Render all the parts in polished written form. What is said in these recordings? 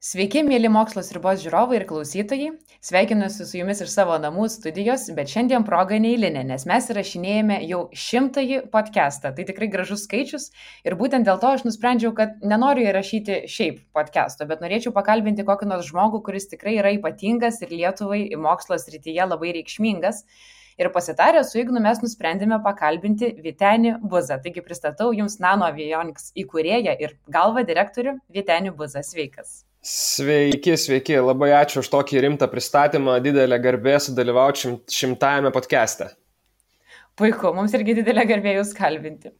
Sveiki, mėly Mokslo sriubos žiūrovai ir klausytojai. Sveikinuosi su jumis iš savo namų studijos, bet šiandien proga neeilinė, nes mes įrašinėjame jau 100-ąjį podcastą. Tai tikrai gražus skaičius ir būtent dėl to aš nusprendžiau, kad nenoriu įrašyti šiaip podcast'o, bet norėčiau pakalbinti kokį nors žmogų, kuris tikrai yra ypatingas ir Lietuvai mokslo srityje labai reikšmingas. Ir pasitarę su Ignu mes nusprendėme pakalbinti Vytenį Buzą. Taigi pristatau jums Nano Avionics įkūrėją ir galvą direktorių Vytenį Buzą. Sveikas. Sveiki, labai ačiū už tokį rimtą pristatymą, didelė garbė sudalyvauti 100-ame podcast'e. Puiku, mums irgi didelė garbė jūs kalbinti.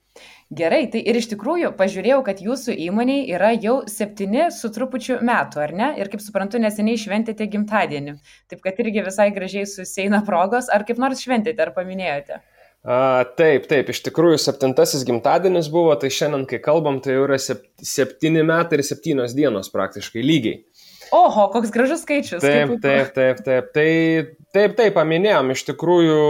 Gerai, tai ir iš tikrųjų pažiūrėjau, kad jūsų įmoniai yra jau 7 su trupučiu metų, ar ne? Ir kaip suprantu, neseniai šventėte gimtadienį. Taip, kad irgi visai gražiai susieina progos, ar kaip nors šventėte, ar paminėjote? Taip, iš tikrųjų 7-asis gimtadienis buvo, tai šiandien, kai kalbam, tai jau yra 7 metai ir 7 dienos praktiškai lygiai. Oho, koks gražus skaičius. Taip, paminėjom, iš tikrųjų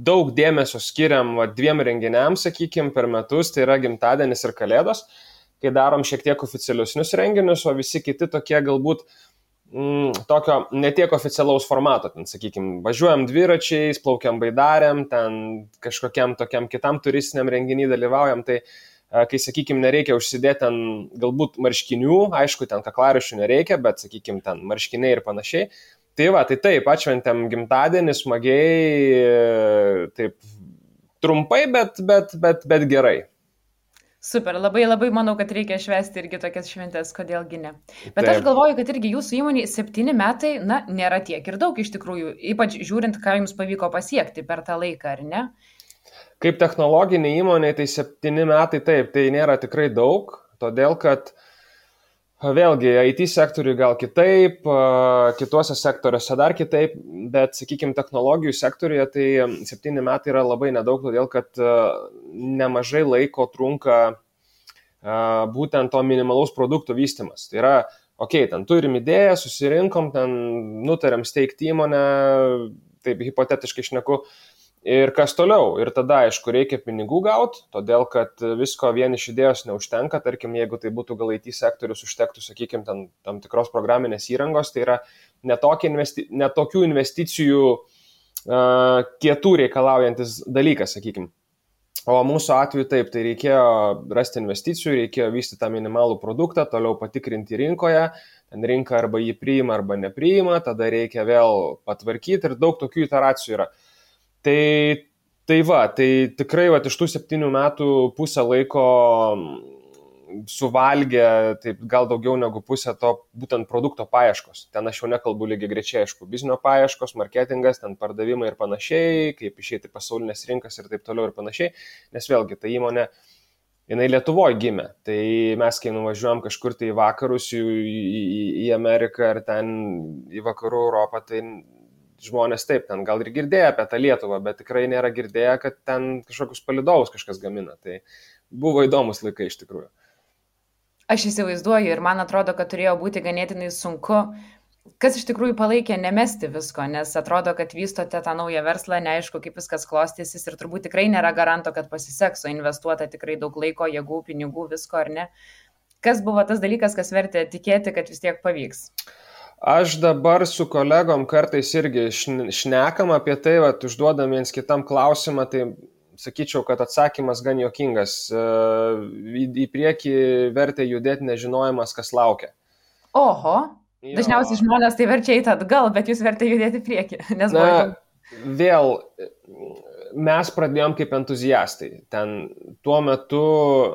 daug dėmesio skiriam 2 renginiams, sakykime, per metus, tai yra gimtadienis ir kalėdos, kai darom šiek tiek oficialiusnius renginius, o visi kiti tokie galbūt tokio netiek oficialaus formato, ten, sakykime, važiuojam dviračiais, plaukiam baidarėm, ten kažkokiam tokiam kitam turistiniam renginį dalyvaujam, tai kai, sakykime, nereikia užsidėti ten galbūt marškinių, aišku, ten kaklariščių nereikia, bet, sakykime, ten marškiniai ir panašiai. Tai taip, atšventėm gimtadienį smagiai, taip trumpai, bet gerai. Super, labai manau, kad reikia švęsti irgi tokias šventės, kodėlgi ne. Bet aš galvoju, kad irgi jūsų įmonė 7 metai, nėra tiek ir daug iš tikrųjų, ypač žiūrint, ką jums pavyko pasiekti per tą laiką, ar ne? Kaip technologinė įmonė, tai 7 metai taip, tai nėra tikrai daug, todėl kad vėlgi IT sektoriui gal kitaip, kituose sektoriuose dar kitaip, bet, sakykime, technologijų sektoriuje tai 7 metai yra labai nedaug, todėl kad nemažai laiko trunka būtent to minimalaus produkto vystymas. Tai yra, ten turim idėją, susirinkom, ten nutarėm steigti įmonę, taip hipotetiškai šneku, ir kas toliau. Ir tada, aišku, reikia pinigų gauti, todėl kad visko vien iš idėjos neužtenka. Tarkim, jeigu tai būtų gal IT sektorius, užtektų, sakykime, tam tikros programinės įrangos, tai yra netokių investicijų kietų reikalaujantis dalykas, sakykime. O mūsų atveju taip, tai reikėjo rasti investicijų, reikėjo vystyti tą minimalų produktą, toliau patikrinti rinkoje, ten rinka arba jį priima, arba nepriima, tada reikia vėl patvarkyti ir daug tokių iteracijų yra. Tai tikrai iš tų 7 metų pusę laiko suvalgė, taip gal daugiau negu pusę to būtent produkto paieškos. Ten aš jau nekalbu lygiai grečiai, aišku, biznio paieškos, marketingas, ten pardavimai ir panašiai, kaip išeiti pasaulinės rinkas ir taip toliau ir panašiai, nes vėlgi ta įmonė, jinai Lietuvoje gimė. Tai mes, kai nuvažiuojam kažkur tai į vakarus, į Ameriką ar ten į vakarų Europą, tai žmonės taip, ten gal ir girdėjo apie tą Lietuvą, bet tikrai nėra girdėję, kad ten kažkokius palydovus kažkas gamina. Tai buvo įdomus laikai iš tikrųjų. Aš įsivaizduoju ir man atrodo, kad turėjo būti ganėtinai sunku, kas iš tikrųjų palaikė nemesti visko, nes atrodo, kad vystote tą naują verslą, neaišku, kaip viskas klostysis ir turbūt tikrai nėra garanto, kad pasiseks, o investuota tikrai daug laiko, jėgų, pinigų, visko, ar ne? Kas buvo tas dalykas, kas vertė tikėti, kad vis tiek pavyks? Aš dabar su kolegom kartais irgi šnekam apie tai, užduodam viens kitam klausimą, tai sakyčiau, kad atsakymas gan juokingas. Į priekį vertė judėti nežinojimas, kas laukia. Oho, dažniausiai žmonės tai verčia eiti atgal, bet jūs vertė judėti į priekį. Vėl, mes pradėjom kaip entuziastai. Tuo metu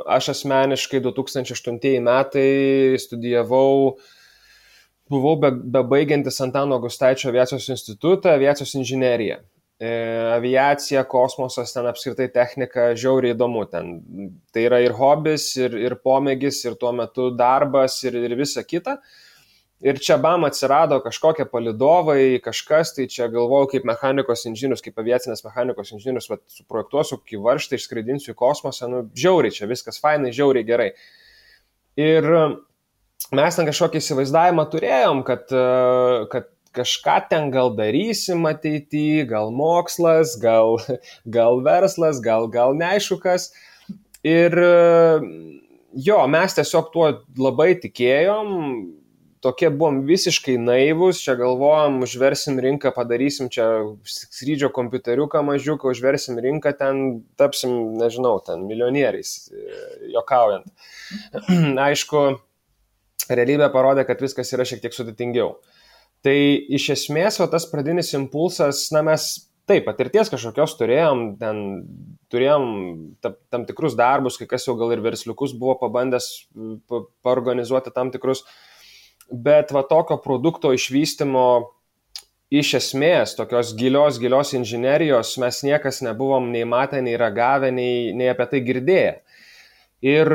aš asmeniškai 2008 metai studijavau, buvau bebaigiantis Antano Gustaičio aviacijos institutą, aviacijos inžineriją. Aviacija, kosmosas, ten apskritai technika, žiauriai įdomu. Tai yra ir hobis, ir pomėgis, ir tuo metu darbas, ir visa kita. Ir čia atsirado kažkokie palydovai, kažkas, tai čia galvojau kaip mechanikos inžinierius, kaip aviacinės mechanikos inžinierius, suprojektuosiu kokį varžtą, išskraidinsiu į kosmosą, žiauriai čia viskas fainai, žiauriai gerai. Ir mes ten kažkokį įsivaizdavimą turėjom, kad kažką ten gal darysim ateityje, gal mokslas, gal verslas, gal neaišku kas. Ir jo, mes tiesiog tuo labai tikėjom, tokie buvom visiškai naivus, čia galvojom, užversim rinką, padarysim čia skrydžio kompiuteriuką mažiuką, užversim rinką, ten tapsim, nežinau, ten milijonieriais, juokaujant. Aišku, realybė parodė, kad viskas yra šiek tiek sudėtingiau. Tai iš esmės, tas pradinis impulsas, mes taip, patirties kažkokios turėjom tam tikrus darbus, kai kas jau gal ir versliukus buvo pabandęs paorganizuoti tam tikrus, bet tokio produkto išvystymo iš esmės, tokios gilios inžinerijos mes niekas nebuvom nei matę, nei ragavę, nei apie tai girdėję. Ir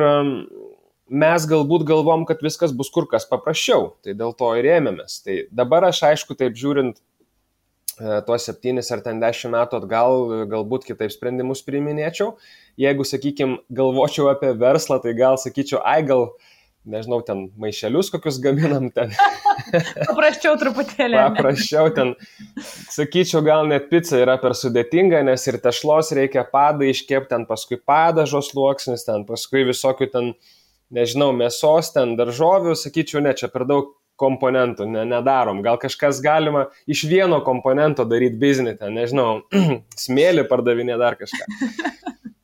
mes galbūt galvom, kad viskas bus kur kas paprasčiau, tai dėl to ir ėmėmės. Tai dabar aš aišku taip žiūrint, tuos 7 ar 10 metų atgal galbūt kitaip sprendimus priiminėčiau. Jeigu, sakykime, galvočiau apie verslą, tai gal sakyčiau, gal, nežinau, ten maišelius kokius gaminam ten. Paprasčiau truputėlį. Paprasčiau ten, sakyčiau, gal net pica yra per sudėtinga, nes ir tešlos reikia padą iškepti, ten paskui padažos sluoksnis, ten paskui visokių ten, nežinau, mėsos, ten daržovių, sakyčiau, ne, čia per daug komponentų nedarom. Gal kažkas galima iš vieno komponento daryti biznį, ten, nežinau, smėlį pardavinė dar kažką.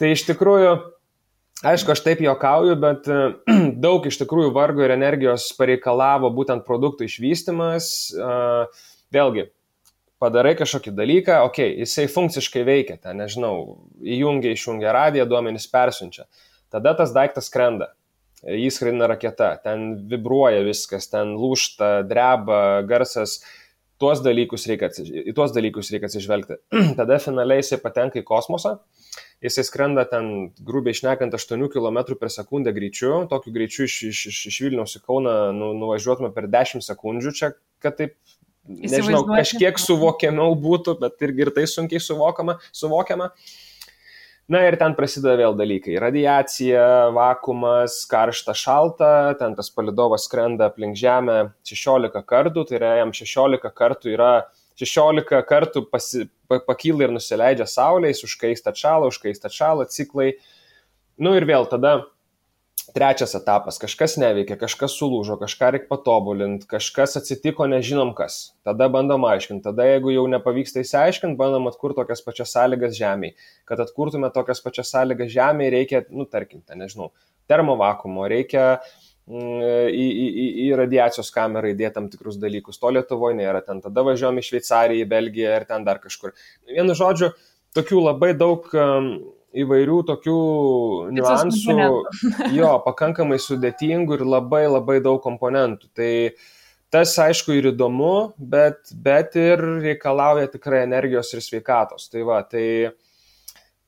Tai iš tikrųjų, aišku, aš taip juokauju, bet daug iš tikrųjų vargo ir energijos pareikalavo būtent produktų išvystymas. Vėlgi, padarai kažkokį dalyką, jisai funkciškai veikia, ten, nežinau, išjungia radiją, duomenys persiunčia. Tada tas daiktas skrenda. Jis skraidina raketa, ten vibruoja viskas, ten lūžta, dreba, garsas, į tuos dalykus reikia atsižvelgti. Tada finaliai jisai patenka į kosmosą, jisai skrenda ten, grubiai šnekant, 8 km per sekundę greičiu, tokiu greičiu iš Vilniaus į Kauną nuvažiuotume per 10 sekundžių, čia, kad taip, nežinau, kažkiek suvokiamiau būtų, bet ir tai sunkiai suvokiama. Na ir ten prasideda vėl dalykai. Radiacija, vakuumas, karšta, šalta, ten tas palydovas skrenda aplink Žemę 16 kartų, tai yra jam 16 kartų pakyla ir nusileidžia Saulės, užkaista atšala, ciklai. Ir vėl tada trečias etapas, kažkas neveikia, kažkas sulūžo, kažką reikia patobulinti, kažkas atsitiko, nežinom kas. Tada bandom aiškinti, tada jeigu jau nepavyksta įsiaiškinti, bandom atkurti tokias pačias sąlygas Žemėje. Kad atkurtume tokias pačias sąlygas Žemėje, reikia, tarkim, nežinau, termovakuumo, reikia į radiacijos kamerą įdėti tam tikrus dalykus. To Lietuvoje nėra, ten tada važiuojam į Šveicariją, į Belgiją ir ten dar kažkur. Vienu žodžiu, tokių labai daug įvairių tokių niuansų, pakankamai sudėtingų ir labai labai daug komponentų. Tai tas, aišku, ir įdomu, bet ir reikalauja tikrai energijos ir sveikatos. Tai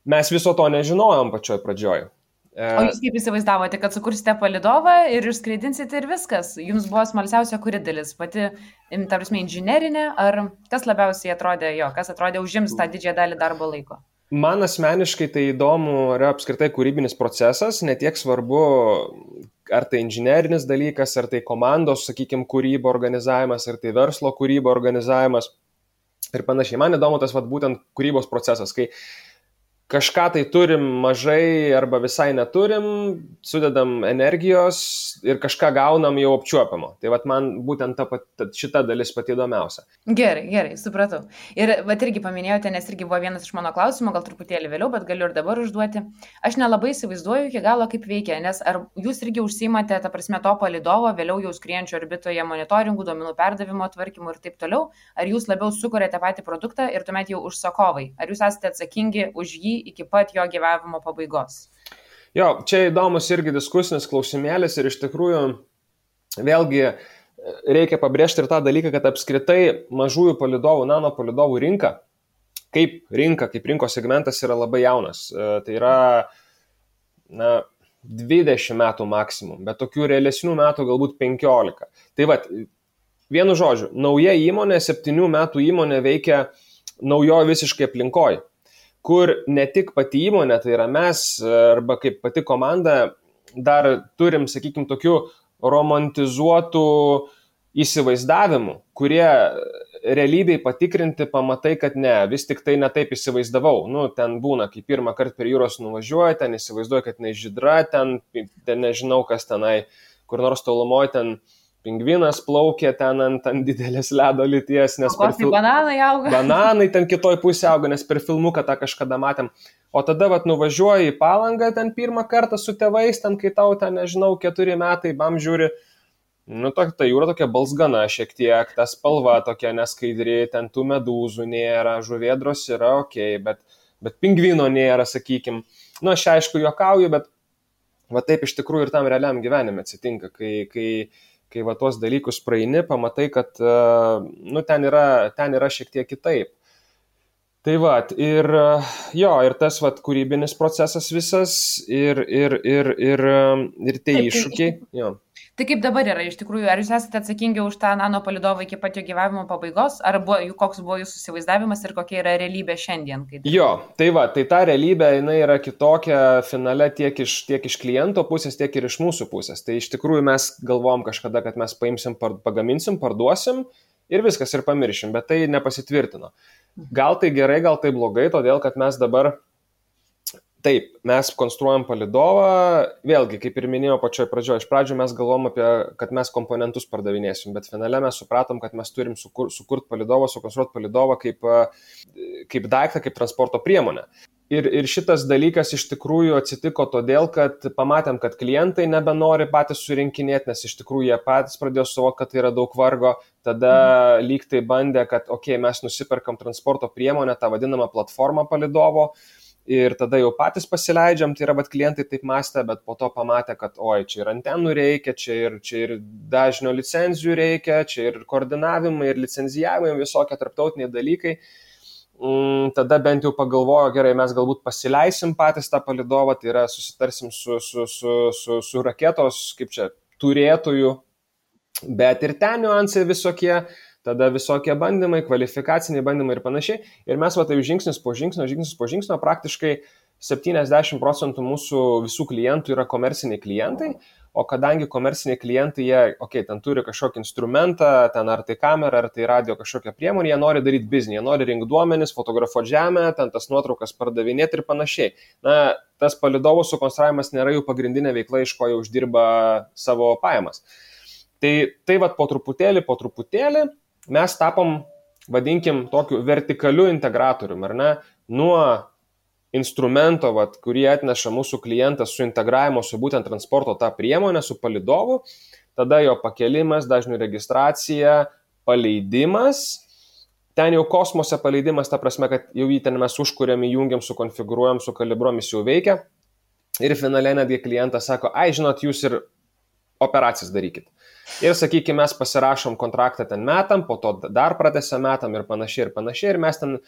mes viso to nežinojom pačioj pradžioj. O jūs kaip įsivaizdavote, kad sukursite palydovą ir išskraidinsite ir viskas? Jums buvo smalsiausia kuri dalis? Pati, tarsi, inžinerinė, ar kas labiausiai atrodė kas atrodė užims tą didžiąją dalį darbo laiko? Man asmeniškai tai įdomu yra apskritai kūrybinis procesas, netiek svarbu, ar tai inžinerinis dalykas, ar tai komandos, sakykime, kūrybo organizavimas, ar tai verslo kūrybo organizavimas ir panašiai. Man įdomu tas būtent kūrybos procesas, kai kažką tai turim mažai arba visai neturim, sudedam energijos ir kažką gaunam jau apčiuopiamo. Tai man būtent šita dalis pati įdomiausia. Gerai, supratau. Ir irgi paminėjote, nes irgi buvo vienas iš mano klausimų, gal truputėlį vėliau, bet galiu ir dabar užduoti. Aš nelabai įsivaizduoju iki galo, kaip veikia, nes ar jūs irgi užsiimate, to palydovo, vėliau jau skriejančio orbitoje monitoringų, duomenų perdavimo tvarkymų ir taip toliau, ar jūs labiau sukuriate patį produktą ir tuomet jau užsakovai? Ar jūs esate atsakingi už jį iki pat jo gyvavimo pabaigos? Čia įdomus irgi diskusinis klausimėlis ir iš tikrųjų vėlgi reikia pabrėžti ir tą dalyką, kad apskritai mažųjų palydovų, nano palydovų rinka, kaip rinkos segmentas yra labai jaunas. Tai yra 20 metų maksimum, bet tokių realesnių metų galbūt 15. Tai vienu žodžiu, nauja įmonė, 7 metų įmonė veikia naujoje visiškai aplinkoje, kur ne tik pati įmonė, tai yra mes arba kaip pati komanda dar turim, sakykime, tokių romantizuotų įsivaizdavimų, kurie realybėj patikrinti, pamatai, kad ne, vis tik tai netaip įsivaizdavau. Nu, ten būna, kai pirmą kartą per jūros nuvažiuoji, ten įsivaizduoju, kad nežydra, ten nežinau, kas tenai, kur nors tolumoje ten pingvinas plaukė ten ant didelės ledo lyties, nes bananai auga. Bananai ten kitoj pusė auga, nes per filmuką tą kažkada matėm. O tada nuvažiuoji į Palangą ten pirmą kartą su tėvais, ten kai tau ten, nežinau, 4 metai, bam žiūri, ta jūra tokia balsgana šiek tiek, ta spalva tokia neskaidri, ten tų medūzų nėra, žuvėdros yra okei, bet pingvino nėra, sakykim. Aš aišku juokauju, bet taip iš tikrųjų ir tam realiam gyvenime atsitinka, kai tuos dalykus praeini, pamatai, kad ten yra šiek tiek kitaip. Tai ir tas kūrybinis procesas visas ir tie iššūkiai. Jo. Tai kaip dabar yra iš tikrųjų, ar jūs esate atsakingi už tą nano palydovą iki pat jo gyvavimo pabaigos, ar koks buvo jūsų įsivaizdavimas ir kokia yra realybė šiandien? Jo, tai ta realybė, jinai yra kitokia finale tiek iš kliento pusės, tiek ir iš mūsų pusės. Tai iš tikrųjų mes galvom kažkada, kad mes paimsim, pagaminsim, parduosim ir viskas ir pamiršim, bet tai nepasitvirtino. Gal tai gerai, gal tai blogai, todėl kad mes dabar taip, mes konstruojam palydovą, vėlgi, kaip ir minėjau pačioj pradžioje, iš pradžių mes galvom kad mes komponentus pardavinėsim, bet finale mes supratom, kad mes turim sukurti palydovą, sukonstruoti palydovą kaip daiktą, kaip transporto priemonę. Ir šitas dalykas iš tikrųjų atsitiko todėl, kad pamatėm, kad klientai nebenori patys surinkinėti, nes iš tikrųjų jie patys pradėjo suvokti, kad tai yra daug vargo, tada lyg tai bandė, kad mes nusiperkam transporto priemonę, tą vadinamą platformą palydovo, ir tada jau patys pasileidžiam, tai yra klientai taip mąstė, bet po to pamatė, kad čia ir antenų reikia, čia ir dažnio licenzijų reikia, čia ir koordinavimai, ir licenzijavimai, visokie tarptautiniai dalykai. Tada bent jau pagalvojo, gerai, mes galbūt pasileisim patys tą palydovą, tai yra susitarsim su raketos, turėtojų, bet ir ten niuansai visokie, tada visokie bandymai, kvalifikaciniai bandymai ir panašiai. Ir mes taip žingsnis po žingsnio, praktiškai 70% mūsų visų klientų yra komerciniai klientai, o kadangi komerciniai klientai, jie, ten turi kažkokį instrumentą, ten ar tai kamera, ar tai radio kažkokią priemonę, jie nori daryti biznį, jie nori rinkti duomenis, fotografuoti žemę, ten tas nuotraukas pardavinėti ir panašiai. Tas palydovų sukonstravimas nėra jų pagrindinė veikla, iš ko jie uždirba savo pajamas. Tai po truputėlį mes tapom, vadinkim, tokiu vertikaliu integratorium, ar ne? Nuo instrumento, kurį atneša mūsų klientas su integravimo su būtent transporto tą priemonę, su palydovu, tada jo pakelimas, dažnių registracija, paleidimas. Ten jau kosmose paleidimas, ta prasme, kad jau jį ten mes užkuriam, įjungiam, sukonfigūruojam, sukalibruojam, jis jau veikia. Ir finaliai netgi klientas sako, žinot, jūs ir operacijas darykit. Ir, sakykime, mes pasirašom kontraktą ten metam, po to dar pratęsiam metam ir panašiai. Ir mes ten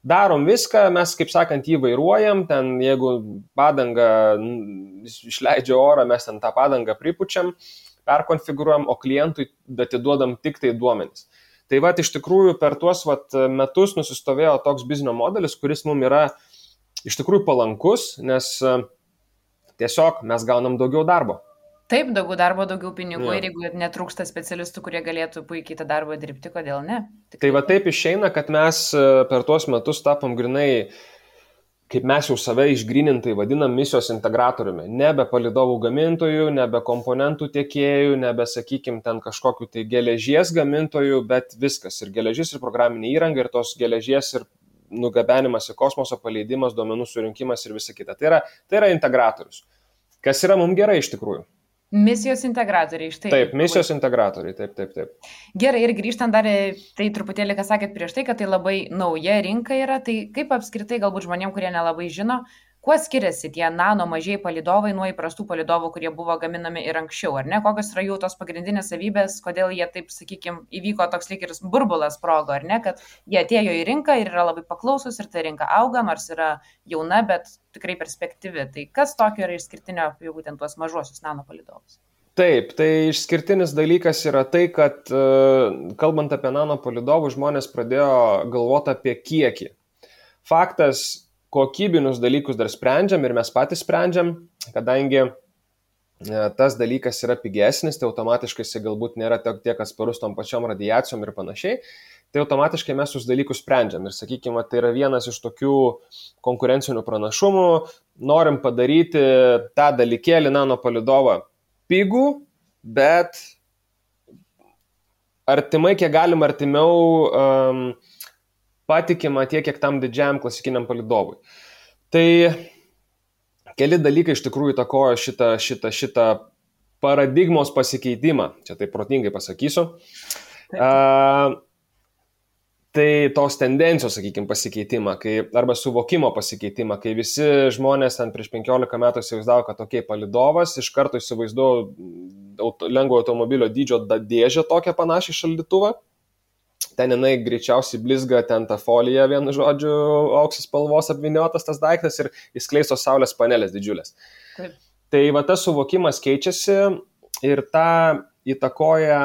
darom viską, mes, kaip sakant, jį vairuojam, ten jeigu padanga išleidžia orą, mes ten tą padangą pripučiam, perkonfigūruojam, o klientui atiduodam tik tai duomenis. Tai iš tikrųjų per tuos metus nusistovėjo toks biznio modelis, kuris mums yra iš tikrųjų palankus, nes tiesiog mes gaunam daugiau darbo. Taip, daugiau darbo, daugiau pinigų, ir jeigu netrūksta specialistų, kurie galėtų puikiai tą darbą dirbti, kodėl ne? Tai taip išeina, kad mes per tuos metus tapom grinai, kaip mes jau save išgrynintai vadinam, misijos integratoriumi. Nebe palydovų gamintojų, nebe komponentų tiekėjų, nebe, sakykim, ten kažkokiu tai geležies gamintojų, bet viskas. Ir geležis, ir programinė įranga, ir tos geležies, ir nugabenimas į kosmoso, paleidimas, duomenų surinkimas ir visa kita. Tai yra integratorius. Kas yra mums gerai iš tikrųjų. Misijos integratoriai, štai. Taip, misijos integratoriai, taip. Gerai, ir grįžtant dar, tai truputėlį, ką sakėt prieš tai, kad tai labai nauja rinka yra, tai kaip apskritai galbūt žmonėm, kurie nelabai žino, kuo skiriasi tie nano mažiai palydovai nuo įprastų palydovų, kurie buvo gaminami ir anksčiau, ar ne? Kokios yra jų tos pagrindinės savybės, kodėl jie taip, sakykime, įvyko toks lyg ir burbulas sprogo, ar ne? Kad jie atėjo į rinką ir yra labai paklausus ir ta rinka auga, nors yra jauna, bet tikrai perspektyvi. Tai kas tokio yra išskirtinio apie būtent tuos mažuosius nano palydovus? Taip, tai išskirtinis dalykas yra tai, kad kalbant apie nano palydovų, žmonės pradėjo galvoti apie kiekį. Faktas, kokybinius dalykus dar sprendžiam ir mes patys sprendžiam, kadangi tas dalykas yra pigesnis, tai automatiškai jis galbūt nėra tiek atsparus tom pačiom radiacijom ir panašiai. tai automatiškai mes tuos dalykus sprendžiam. Ir sakykime, tai yra vienas iš tokių konkurencinių pranašumų. Norim padaryti tą dalykėlį nanopalidovą pigų, bet artimai, kiek galim artimiau patikima tiek, kiek tam didžiajam klasikiniam palidovui. Tai keli dalykai iš tikrųjų įtakojo šitą paradigmos pasikeitimą. Čia taip protingai pasakysiu. Tai tos tendencijos, sakykime, pasikeitimą, arba suvokimo pasikeitimą, kai visi žmonės prieš 15 metų įsivaizdavo, kad tokie palidovas, iš karto įsivaizduoju lengvo automobilio dydžio dėžę tokią panašią šaldytuvą. Ten jinai greičiausiai blizga, ten ta folija, vienu žodžiu, auksis spalvos apvyniotas tas daiktas ir įskleistos saulės panelės didžiulės. Taip. Tai va tas suvokimas keičiasi ir tą įtakoja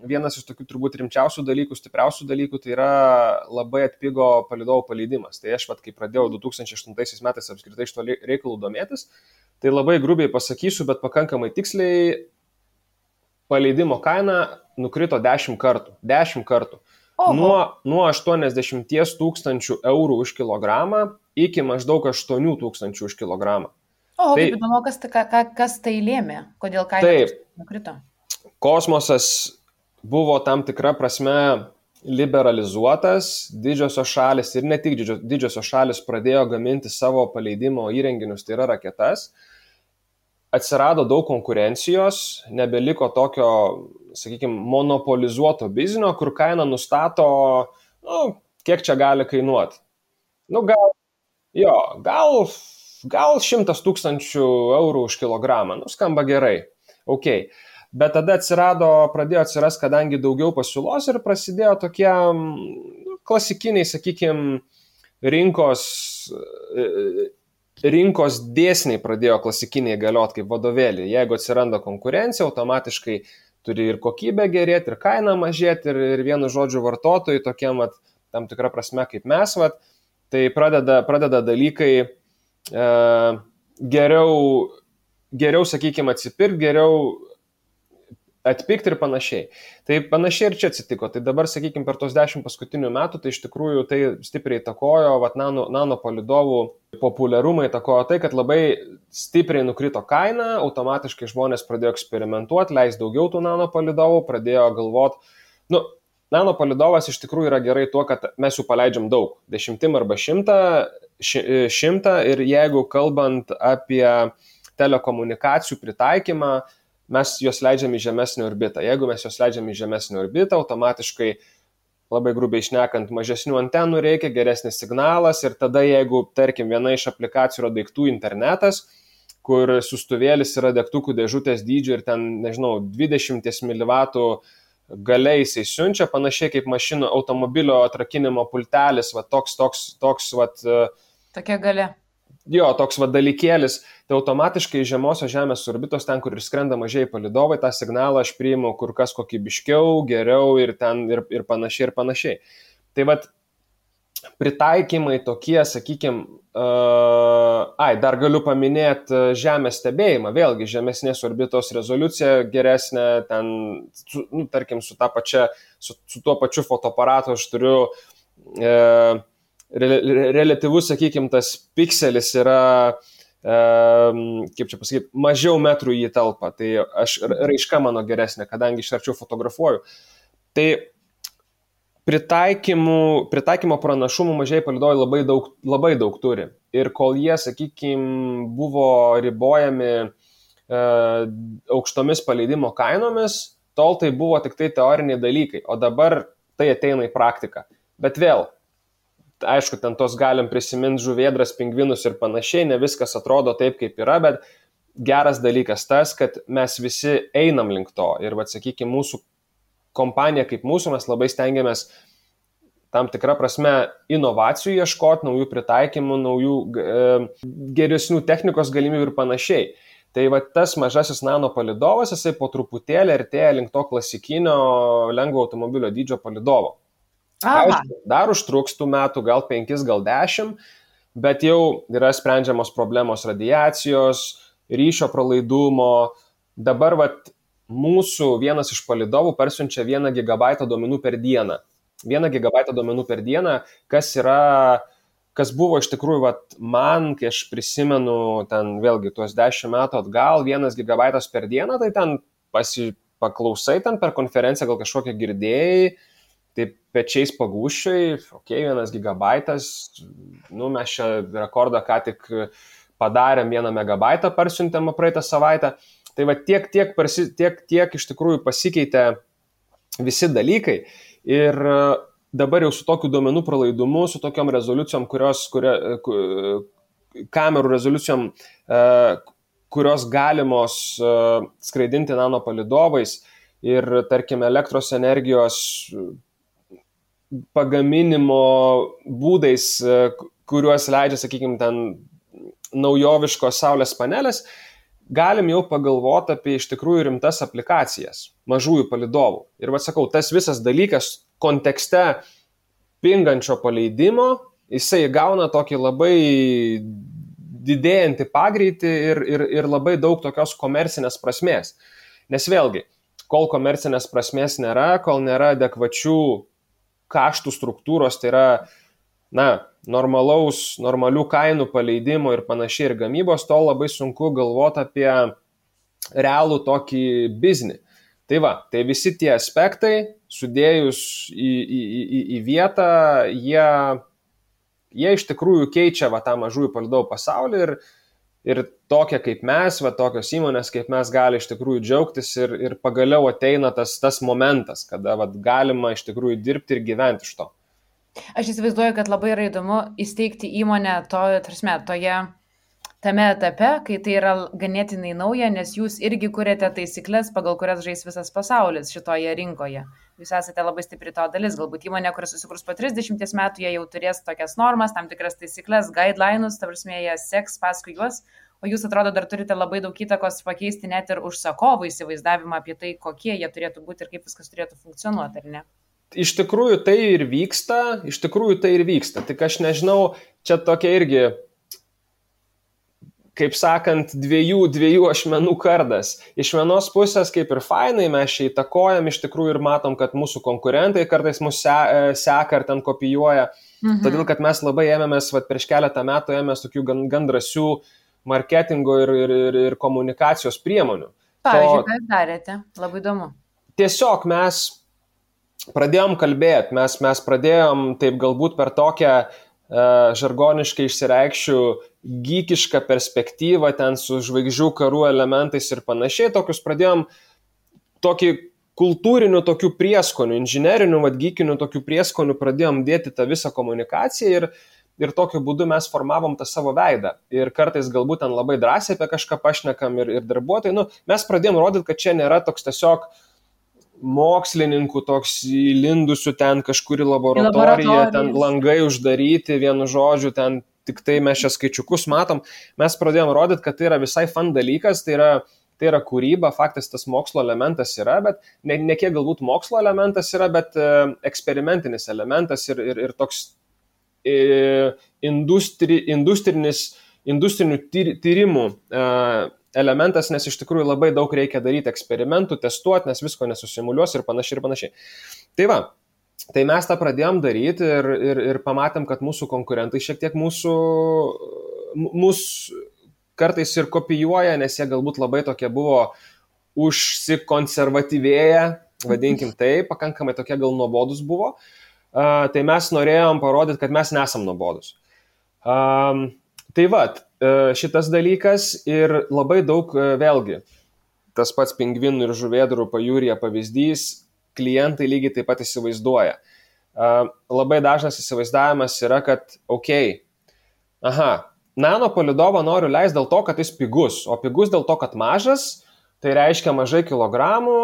vienas iš tokių turbūt rimčiausių dalykų, stipriausių dalykų, tai yra labai atpigo palidovų paleidimas. Tai aš, kai pradėjau 2008 metais apskritai šito reikalų domėtis, tai labai grubiai pasakysiu, bet pakankamai tiksliai, paleidimo kaina nukrito 10 kartų. 10 kartų. Nuo 80 tūkstančių eurų už kilogramą iki maždaug 8 tūkstančių už kilogramą. Kaip įdomu, kas tai lėmė, kodėl kaina nukrito? Kosmosas buvo tam tikra prasme liberalizuotas, didžiosios šalis ir ne tik didžiosios šalis pradėjo gaminti savo paleidimo įrenginius, tai yra raketas. Atsirado daug konkurencijos, nebeliko tokio, sakykime, monopolizuoto biznio, kur kaina nustato, kiek čia gali kainuoti. Gal 100 tūkstančių eurų už kilogramą, skamba gerai. Okay. Bet tada pradėjo atsirasti, kadangi daugiau pasiūlos ir prasidėjo tokie klasikiniai, sakykime, rinkos dėsniai pradėjo klasikiniai galioti kaip vadovėlį. Jeigu atsiranda konkurencija, automatiškai turi ir kokybė gerėti, ir kaina mažėti, ir vienu žodžiu vartotojai tokiem, tam tikrą prasme kaip mes, tai pradeda dalykai geriau, sakykime, atsipirkti, geriau atpikti ir panašiai. Tai panašiai ir čia atsitiko. Tai dabar, sakykime, per tos 10 paskutinių metų, tai iš tikrųjų tai stipriai įtakojo, nanopalidovų populiarumą įtakojo tai, kad labai stipriai nukrito kaina, automatiškai žmonės pradėjo eksperimentuoti, leis daugiau tų nanopalidovų, pradėjo galvoti, nanopalidovas iš tikrųjų yra gerai tuo, kad mes jų paleidžiam daug, 10 arba 100 ir jeigu kalbant apie telekomunikacijų pritaikymą, mes juos leidžiam į žemesnį orbitą. Jeigu mes juos leidžiam į žemesnį orbitą, automatiškai, labai grubiai šnekant, mažesnių antenų reikia, geresnis signalas ir tada, jeigu, tarkim, viena iš aplikacijų yra daiktų internetas, kur siųstuvėlis yra degtukų dėžutės dydžio ir ten, 20 mW galia jisai siunčia, panašiai kaip mašinų automobilio atrakinimo pultelis, tokia galia. Jo, toks dalykėlis, tai automatiškai žemosios Žemės orbitos, ten, kur ir skrenda mažieji palidovai, tą signalą aš priimu kur kas kokybiškiau, geriau ir panašiai. Tai pritaikymai tokie, sakykime, dar galiu paminėti Žemės stebėjimą, vėlgi žemesnės orbitos rezoliucija geresnė, ten, tarkim, su tuo pačiu fotoaparatu aš turiu relatyvus, sakykime, tas pikselis yra, kaip čia pasakyti, mažiau metrų į talpą, tai raiška mano geresnė, kadangi iš arčiau fotografuoju. Tai pritaikymo pranašumų mažieji palydovai labai daug turi. Ir kol jie, sakykime, buvo ribojami aukštomis paleidimo kainomis, tol tai buvo tik tai teoriniai dalykai, o dabar tai ateina į praktiką. Bet vėl, aišku, ten tos galim prisiminti žuvėdras, pingvinus ir panašiai, ne viskas atrodo taip, kaip yra, bet geras dalykas tas, kad mes visi einam link to. Ir, sakykime, mūsų kompanija kaip mūsų, mes labai stengiamės tam tikrą prasme inovacijų ieškoti, naujų pritaikymų, naujų geresnių technikos galimybių ir panašiai. Tai tas mažasis nanopalidovas, jisai po truputėlį artėja link to klasikinio lengvo automobilio dydžio palidovo. Aišku, dar užtruks tų metų, gal 5, gal 10, bet jau yra sprendžiamos problemos radiacijos, ryšio pralaidumo. Dabar mūsų vienas iš palidovų persiunčia 1 GB duomenų per dieną. 1 gigabaitą duomenų per dieną, kas buvo iš tikrųjų, man, kai aš prisimenu ten vėlgi tuos 10 metų atgal, 1 gigabaitas per dieną, tai ten paklausai ten per konferenciją, gal kažkokią girdėjai, tai pečiais pagūščiai, 1 gigabaitas, mes čia rekordą ką tik padarėm, 1 megabaitą parsiuntėm praeitą savaitę. Tai tiek iš tikrųjų pasikeitė visi dalykai ir dabar jau su tokiu duomenų pralaidumu, su tokiom rezoliucijom, kamerų rezoliucijom, kurios galimos skraidinti nanopalydovais ir, tarkim, elektros energijos pagaminimo būdais, kuriuos leidžia, sakykime, ten naujoviškos saulės panelės, galim jau pagalvoti apie iš tikrųjų rimtas aplikacijas mažųjų palydovų. Ir sakau, tas visas dalykas kontekste pingančio paleidimo, jisai gauna tokį labai didėjantį pagreitį ir labai daug tokios komercinės prasmės. Nes vėlgi, kol komercinės prasmės nėra, kol nėra adekvačių kaštų struktūros, tai yra normalių kainų paleidimo ir panašiai ir gamybos, to labai sunku galvoti apie realų tokį biznį. Tai visi tie aspektai, sudėjus į vietą, jie iš tikrųjų keičia tą mažųjų palydovų pasaulį ir tokie kaip mes, tokios įmonės kaip mes gali iš tikrųjų džiaugtis ir pagaliau ateina tas momentas, kada galima iš tikrųjų dirbti ir gyventi iš to. Aš įsivaizduoju, kad labai yra įdomu įsteigti įmonę tame etape, kai tai yra ganėtinai nauja, nes jūs irgi kuriate taisyklės, pagal kurias žais visas pasaulis šitoje rinkoje. Jūs esate labai stipri to dalis, galbūt įmonė, kuris susikurs po 30 metų, jie jau turės tokias normas, tam tikras taisyklės, guidelines, ta prasme, jie seks paskui juos, o jūs, atrodo, dar turite labai daug įtakos pakeisti net ir užsakovų įsivaizdavimą apie tai, kokie jie turėtų būti ir kaip viskas turėtų funkcionuoti, ar ne? Iš tikrųjų tai ir vyksta, tik aš nežinau, čia tokia irgi, kaip sakant, dviejų ašmenų kardas. Iš vienos pusės kaip ir fainai, mes čia įtakojam iš tikrųjų ir matom, kad mūsų konkurentai kartais mus seka ar ten kopijuoja, todėl kad mes labai ėmėmės, prieš keletą metų ėmėmės tokių gan drąsių marketingo ir komunikacijos priemonių. Pavyzdžiui, ką jūs darėte? Labai įdomu. Tiesiog mes pradėjom kalbėti, mes pradėjom taip galbūt per tokią žargoniškai išsireikščių geekišką perspektyvą ten su žvaigždžių karų elementais ir panašiai, tokius pradėjom tokį kultūrinių tokių prieskonių, inžinerinių, geekinių tokių prieskonių pradėjom dėti tą visą komunikaciją ir tokiu būdu mes formavom tą savo veidą. Ir kartais galbūt ten labai drąsiai apie kažką pašnekam ir darbuotojai, mes pradėjom rodyti, kad čia nėra toks tiesiog mokslininkų toks įlindusių ten kažkur į laboratoriją, ten langai uždaryti, vienu žodžiu, ten tik tai mes čia skaičiukus matom. Mes pradėjom rodyti, kad tai yra visai fun dalykas, tai yra kūryba, faktas tas mokslo elementas yra, bet ne kiek galbūt mokslo elementas yra, bet eksperimentinis elementas ir toks industrinių tyrimų elementas, nes iš tikrųjų labai daug reikia daryti eksperimentų, testuoti, nes visko nesusimuliuos ir panašiai. Tai mes tą pradėjom daryti ir pamatėm, kad mūsų konkurentai šiek tiek mūsų kartais ir kopijuoja, nes jie galbūt labai tokie buvo užsikonservatyvėję, vadinkim tai, pakankamai tokie gal nuobodus buvo. Tai mes norėjom parodyti, kad mes nesam nuobodus. Šitas dalykas ir labai daug, vėlgi, tas pats pingvinų ir žuvėdrų pajūryje pavyzdys, klientai lygiai taip pat įsivaizduoja. Labai dažnas įsivaizdavimas yra, kad nanopalydovą noriu leisti dėl to, kad jis pigus, o pigus dėl to, kad mažas, tai reiškia mažai kilogramų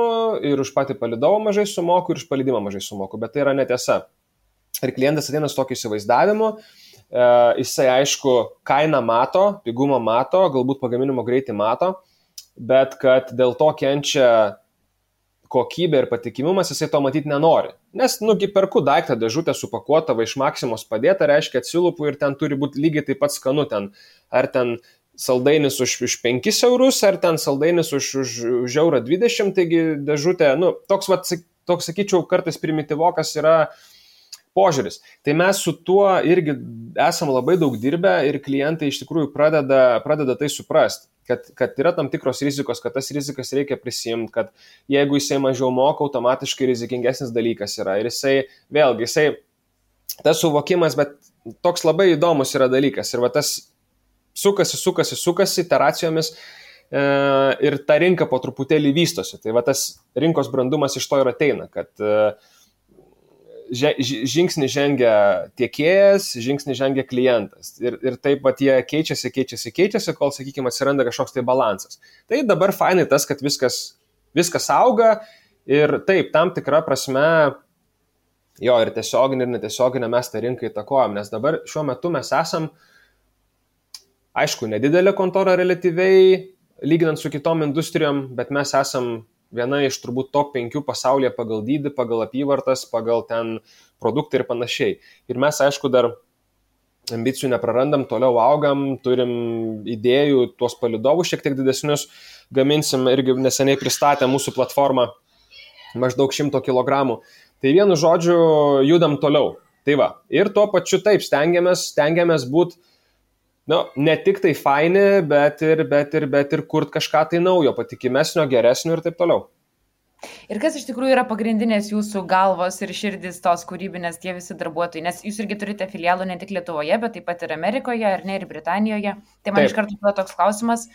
ir už patį palydovą mažai sumoku ir už palydimą mažai sumoku, bet tai yra netiesa. Ir klientas ateina su tokiu įsivaizdavimu, jisai aišku kainą mato, pigumą mato, galbūt pagaminimo greitį mato, bet kad dėl to kenčia kokybė ir patikimumas, jisai to matyti nenori. Nes, perku daiktą dėžutę supakuotą iš Maksimos padėtą, reiškia atsilupu ir ten turi būti lygiai taip pat skanu ten. Ar ten saldainis už 5 eurus, ar ten saldainis už €1,20, taigi dėžutė, toks, sakyčiau, kartais primityvokas yra požiūris. Tai mes su tuo irgi esam labai daug dirbę ir klientai iš tikrųjų pradeda tai suprasti, kad yra tam tikros rizikos, kad tas rizikas reikia prisimti, kad jeigu jisai mažiau moka, automatiškai rizikingesnis dalykas yra. Ir jisai, tas suvokimas, bet toks labai įdomus yra dalykas. Ir va tas sukasi iteracijomis ir ta rinka po truputėlį vystosi. Tai va tas rinkos brandumas iš to ir ateina, kad žingsnį žengia tiekėjas, žingsnį žengia klientas. Ir taip pat jie keičiasi, kol, sakykime, atsiranda kažkoks tai balansas. Tai dabar fainai tas, kad viskas auga ir taip, tam tikra prasme, jo, ir tiesioginė, ir netiesioginė mes tą rinką įtakojam, nes dabar šiuo metu mes esam, aišku, nedidelė kontora relatyviai, lyginant su kitom industrijom, bet mes esam viena iš turbūt top 5 pasaulyje pagal dydį, pagal apyvartas, pagal ten produktą ir panašiai. Ir mes, aišku, dar ambicijų neprarandam, toliau augam, turim idėjų, tuos palydovus šiek tiek didesnius gaminsim, irgi neseniai pristatė mūsų platformą maždaug 100 kg. Tai vienu žodžiu judam toliau. Tai va, ir tuo pačiu taip stengiamės būti, ne tik tai faini, bet ir kurt kažką tai naujo, patikimesnio, geresnio ir taip toliau. Ir kas iš tikrųjų yra pagrindinės jūsų galvos ir širdis tos kūrybinės tie visi darbuotojai, nes jūs irgi turite filialų ne tik Lietuvoje, bet taip pat ir Amerikoje, ar ne, ir Britanijoje. Tai man iš karto kyla toks klausimas,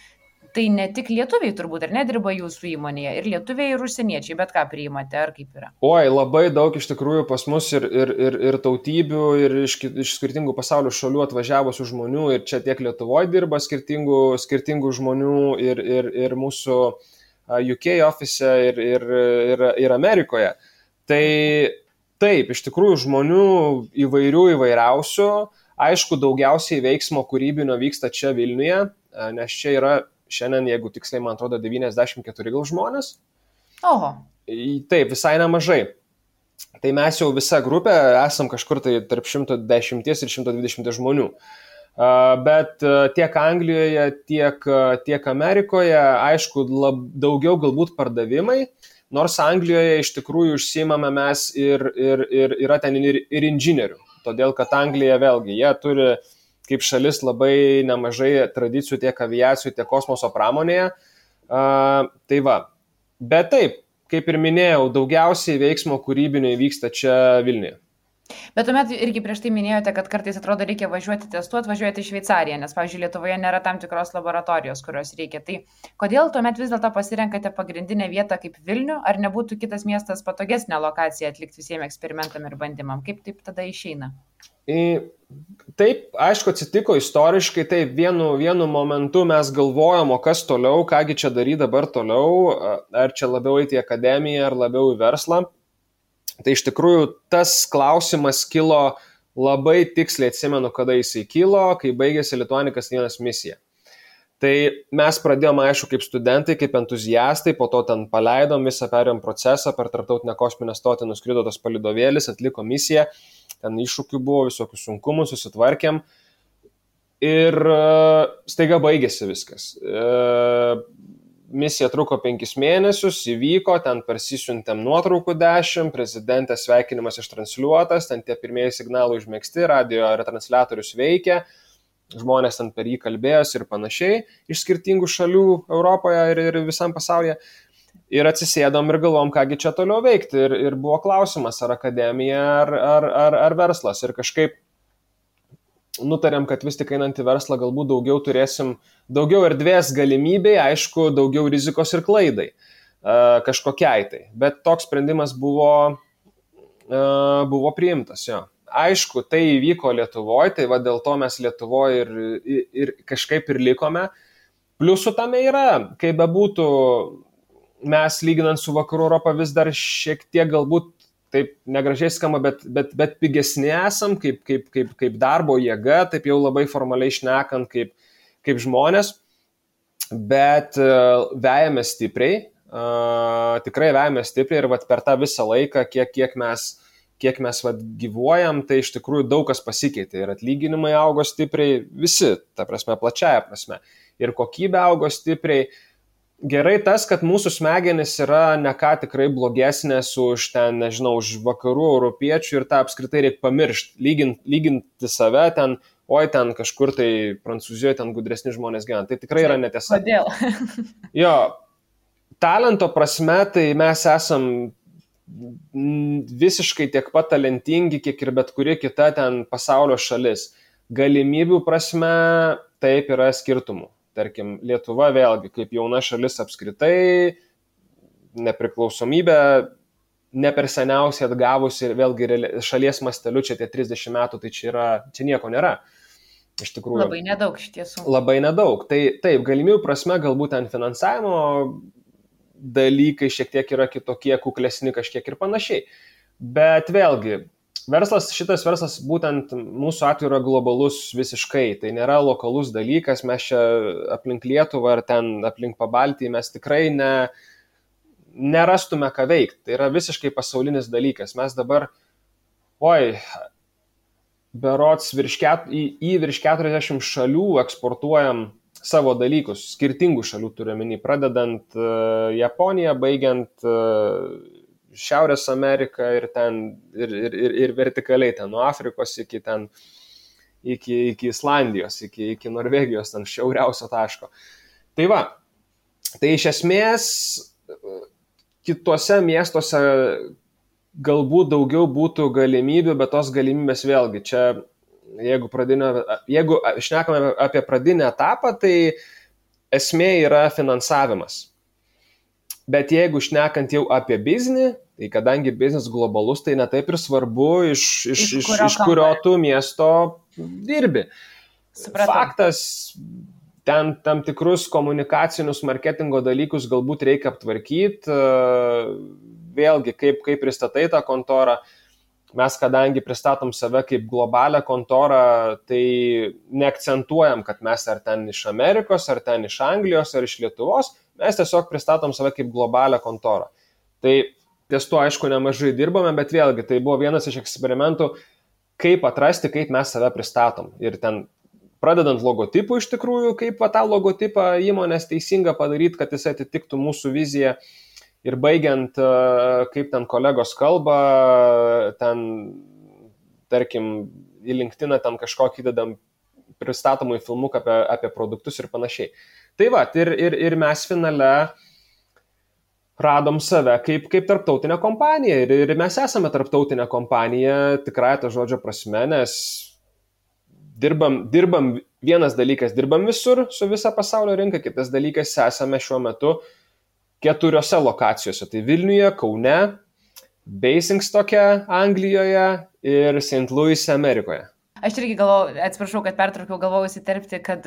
tai ne tik lietuviai turbūt, ar ne, dirba jūsų įmonėje, ir lietuviai, ir užsieniečiai, bet ką priimate, ar kaip yra? Oi, labai daug iš tikrųjų pas mus ir tautybių, ir iš skirtingų pasaulio šalių atvažiavusių žmonių, ir čia tiek Lietuvoje dirba skirtingų žmonių, ir mūsų UK office, ir Amerikoje. Tai taip, iš tikrųjų žmonių įvairiausių, aišku, daugiausiai veiksmo kūrybinio vyksta čia Vilniuje, nes čia yra šiandien, jeigu tiksliai, man atrodo, 94 gal žmonės. Oho. Taip, visai nemažai. Tai mes jau visa grupė esam kažkur tai tarp 110 ir 120 žmonių. Bet tiek Anglijoje, tiek Amerikoje, aišku, daugiau galbūt pardavimai, nors Anglijoje iš tikrųjų užsiimame mes ir yra ten ir inžinierių. Todėl, kad Anglija vėlgi, jie turi kaip šalis labai nemažai tradicijų tiek aviacijų, tiek kosmoso pramonėje. Tai va. Bet taip, kaip ir minėjau, daugiausiai veiksmo kūrybinio vyksta čia Vilniuje. Bet tuomet irgi prieš tai minėjote, kad kartais atrodo reikia testuoti, važiuoti į Šveicariją, nes, pavyzdžiui, Lietuvoje nėra tam tikros laboratorijos, kurios reikia. Tai kodėl tuomet vis dėlto pasirenkate pagrindinę vietą kaip Vilnių, ar nebūtų kitas miestas patogesnė lokacija atlikti visiems eksperimentam ir bandymam? Kaip taip tada išeina? Taip, aišku, atsitiko istoriškai, taip, vienu momentu mes galvojom, o kas toliau, kągi čia daryti dabar toliau, ar čia labiau eiti į akademiją, ar labiau į verslą. Tai iš tikrųjų tas klausimas kilo labai tiksliai, atsimenu, kada jisai kilo, kai baigėsi Lituanikas 1 misija. Tai mes pradėjome, aišku, kaip studentai, kaip entuziastai, po to ten paleidom visą, perėjom procesą, per tarptautinę kosminę stotį nuskrido tas palydovėlis, atliko misiją, ten iššūkių buvo, visokių sunkumų, susitvarkėm ir staiga baigėsi viskas. Misija truko 5 mėnesius, įvyko, ten persisiuntėm nuotraukų 10, prezidentės sveikinimas ištransliuotas, ten tie pirmieji signalai užmėgsti, radio retransliatorius veikia, žmonės ten per jį kalbėjosi ir panašiai, iš skirtingų šalių Europoje ir visam pasaulyje. Ir atsisėdom ir galvom, kągi čia toliau veikti. Ir buvo klausimas, ar akademija, ar verslas. Ir kažkaip nutarėm, kad vis tik einant į verslą galbūt turėsim daugiau erdvės galimybei, aišku, daugiau rizikos ir klaidai kažkokiai tai. Bet toks sprendimas buvo priimtas, jo. Aišku, tai įvyko Lietuvoje, tai va dėl to mes Lietuvoje ir kažkaip ir likome. Pliusų tame yra, kaip bebūtų, mes lyginant su Vakarų Europą vis dar šiek tiek galbūt taip negražiai skamba, bet pigesni esam, kaip darbo jėga, taip jau labai formaliai šnekant, kaip žmonės, bet vejame stipriai, tikrai vejame stipriai ir per tą visą laiką, kiek mes gyvuojam, tai iš tikrųjų daug kas pasikeitė ir atlyginimai augo stipriai, visi, ta prasme, plačiaja prasme, ir kokybė augo stipriai. gerai tas, kad mūsų smegenys yra ne ką tikrai blogesnės už ten, nežinau, už vakarų europiečių ir tą apskritai reikia pamiršti, lyginti save ten, oi ten kažkur tai Prancūzijoje ten gudresni žmonės gyvena. Tai tikrai yra netiesa. Kodėl? Jo, talento prasme tai mes esam visiškai tiek pat talentingi, kiek ir bet kuri kita ten pasaulio šalis. Galimybių prasme taip yra skirtumų. Tarkim, Lietuva vėlgi, kaip jauna šalis apskritai, nepriklausomybė ne per seniausiai atgavusi ir vėlgi šalies masteliu čia tie 30 metų, tai čia nieko nėra. Iš tikrųjų. Labai nedaug iš tiesų. Labai nedaug. Tai taip, galimybių prasme galbūt ten finansavimo dalykai šiek tiek yra kitokie, kuklesni kažkiek ir panašiai. Bet vėlgi, šitas verslas būtent mūsų atveju yra globalus visiškai, tai nėra lokalus dalykas, mes čia aplink Lietuvą ar ten aplink Pabaltį mes tikrai nerastume ką veikti, tai yra visiškai pasaulinis dalykas. Mes dabar, berods į virš 40 šalių eksportuojam savo dalykus, skirtingų šalių turiuomenį, pradedant Japoniją, baigiant Šiaurės Ameriką ir vertikaliai ten nuo Afrikos iki Islandijos, iki Norvegijos, ten šiauriausio taško. Tai va, tai iš esmės kitose miestuose galbūt daugiau būtų galimybių, bet tos galimybės vėlgi čia, jeigu šnekame apie pradinį etapą, tai esmė yra finansavimas. Bet jeigu šnekant jau apie biznį, tai kadangi biznis globalus, tai netaip ir svarbu, iš kurio tu miesto dirbi. Supratau. Faktas, ten tam tikrus komunikacinius marketingo dalykus galbūt reikia aptvarkyti. Vėlgi, kaip pristatai tą kontorą, mes kadangi pristatom save kaip globalią kontorą, tai neakcentuojam, kad mes ar ten iš Amerikos, ar ten iš Anglijos, ar iš Lietuvos, mes tiesiog pristatom save kaip globalią kontorą. Tai ties tuo, aišku, nemažai dirbame, bet vėlgi, tai buvo vienas iš eksperimentų, kaip atrasti, kaip mes save pristatom. Ir ten, pradedant logotipų iš tikrųjų, kaip tą logotipą įmonės teisinga padaryti, kad jis atitiktų mūsų viziją. Ir baigiant, kaip ten kolegos kalba, ten, tarkim, į LinkedIną ten kažkokį įdedam pristatomų filmuką apie produktus ir panašiai. Tai va, ir mes finale radom save kaip tarptautinę kompaniją. Ir mes esame tarptautinė kompanija, tikrai to žodžio prasme, nes dirbam, vienas dalykas, dirbam visur su visa pasaulio rinka, kitas dalykas, esame šiuo metu 4 lokacijose. Tai Vilniuje, Kaune, Basingstoke, Anglijoje ir St. Louis, Amerikoje. Aš irgi atsiprašau, kad pertraukiau, galvojau įsiterpti, kad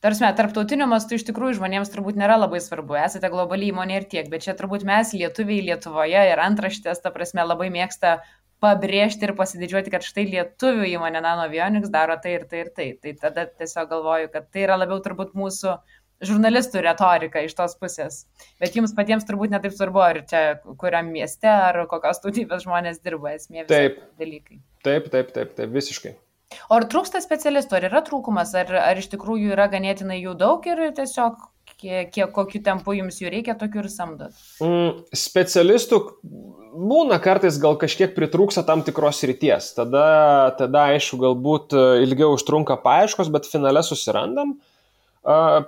tarptautiniu mastu iš tikrųjų žmonėms turbūt nėra labai svarbu. Esate globali įmonė ir tiek, bet čia turbūt mes, lietuviai Lietuvoje ir antraštės, ta prasme, labai mėgsta pabrėžti ir pasididžiuoti, kad štai lietuvių įmonė Nanoavionics daro tai ir tai ir tai. Tai tada tiesiog galvoju, kad tai yra labiau turbūt mūsų žurnalistų retorika iš tos pusės. Bet jums patiems turbūt netaip svarbu, ar čia kuriam mieste, ar kokios tautybės žmonės dirba, esmė visi dalykai. Taip, visiškai. O ar trūksta specialistų, ar yra trūkumas, ar iš tikrųjų yra ganėtinai jų daug ir tiesiog kokiu tempu jums jų reikia, tokių ir samdot? Specialistų būna kartais gal kažkiek pritrūksta tam tikros srities. Tada aišku, galbūt ilgiau užtrunka paieškos, bet finale susirandam.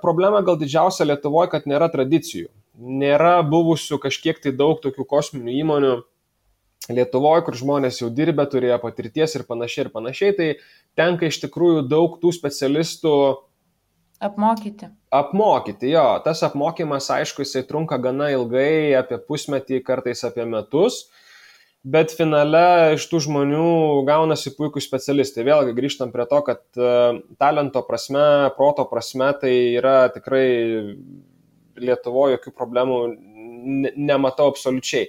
Problema gal didžiausia Lietuvoje, kad nėra tradicijų. Nėra buvusių kažkiek tai daug tokių kosminių įmonių Lietuvoje, kur žmonės jau dirbę, turėjo patirties ir panašiai. Tai tenka iš tikrųjų daug tų specialistų apmokyti, jo. Tas apmokymas, aišku, jisai trunka gana ilgai, apie pusmetį, kartais apie metus. Bet finale iš tų žmonių gaunasi puikūs specialistai. Vėlgi grįžtam prie to, kad talento prasme, proto prasme, tai yra tikrai Lietuvoje jokių problemų nematau absoliučiai.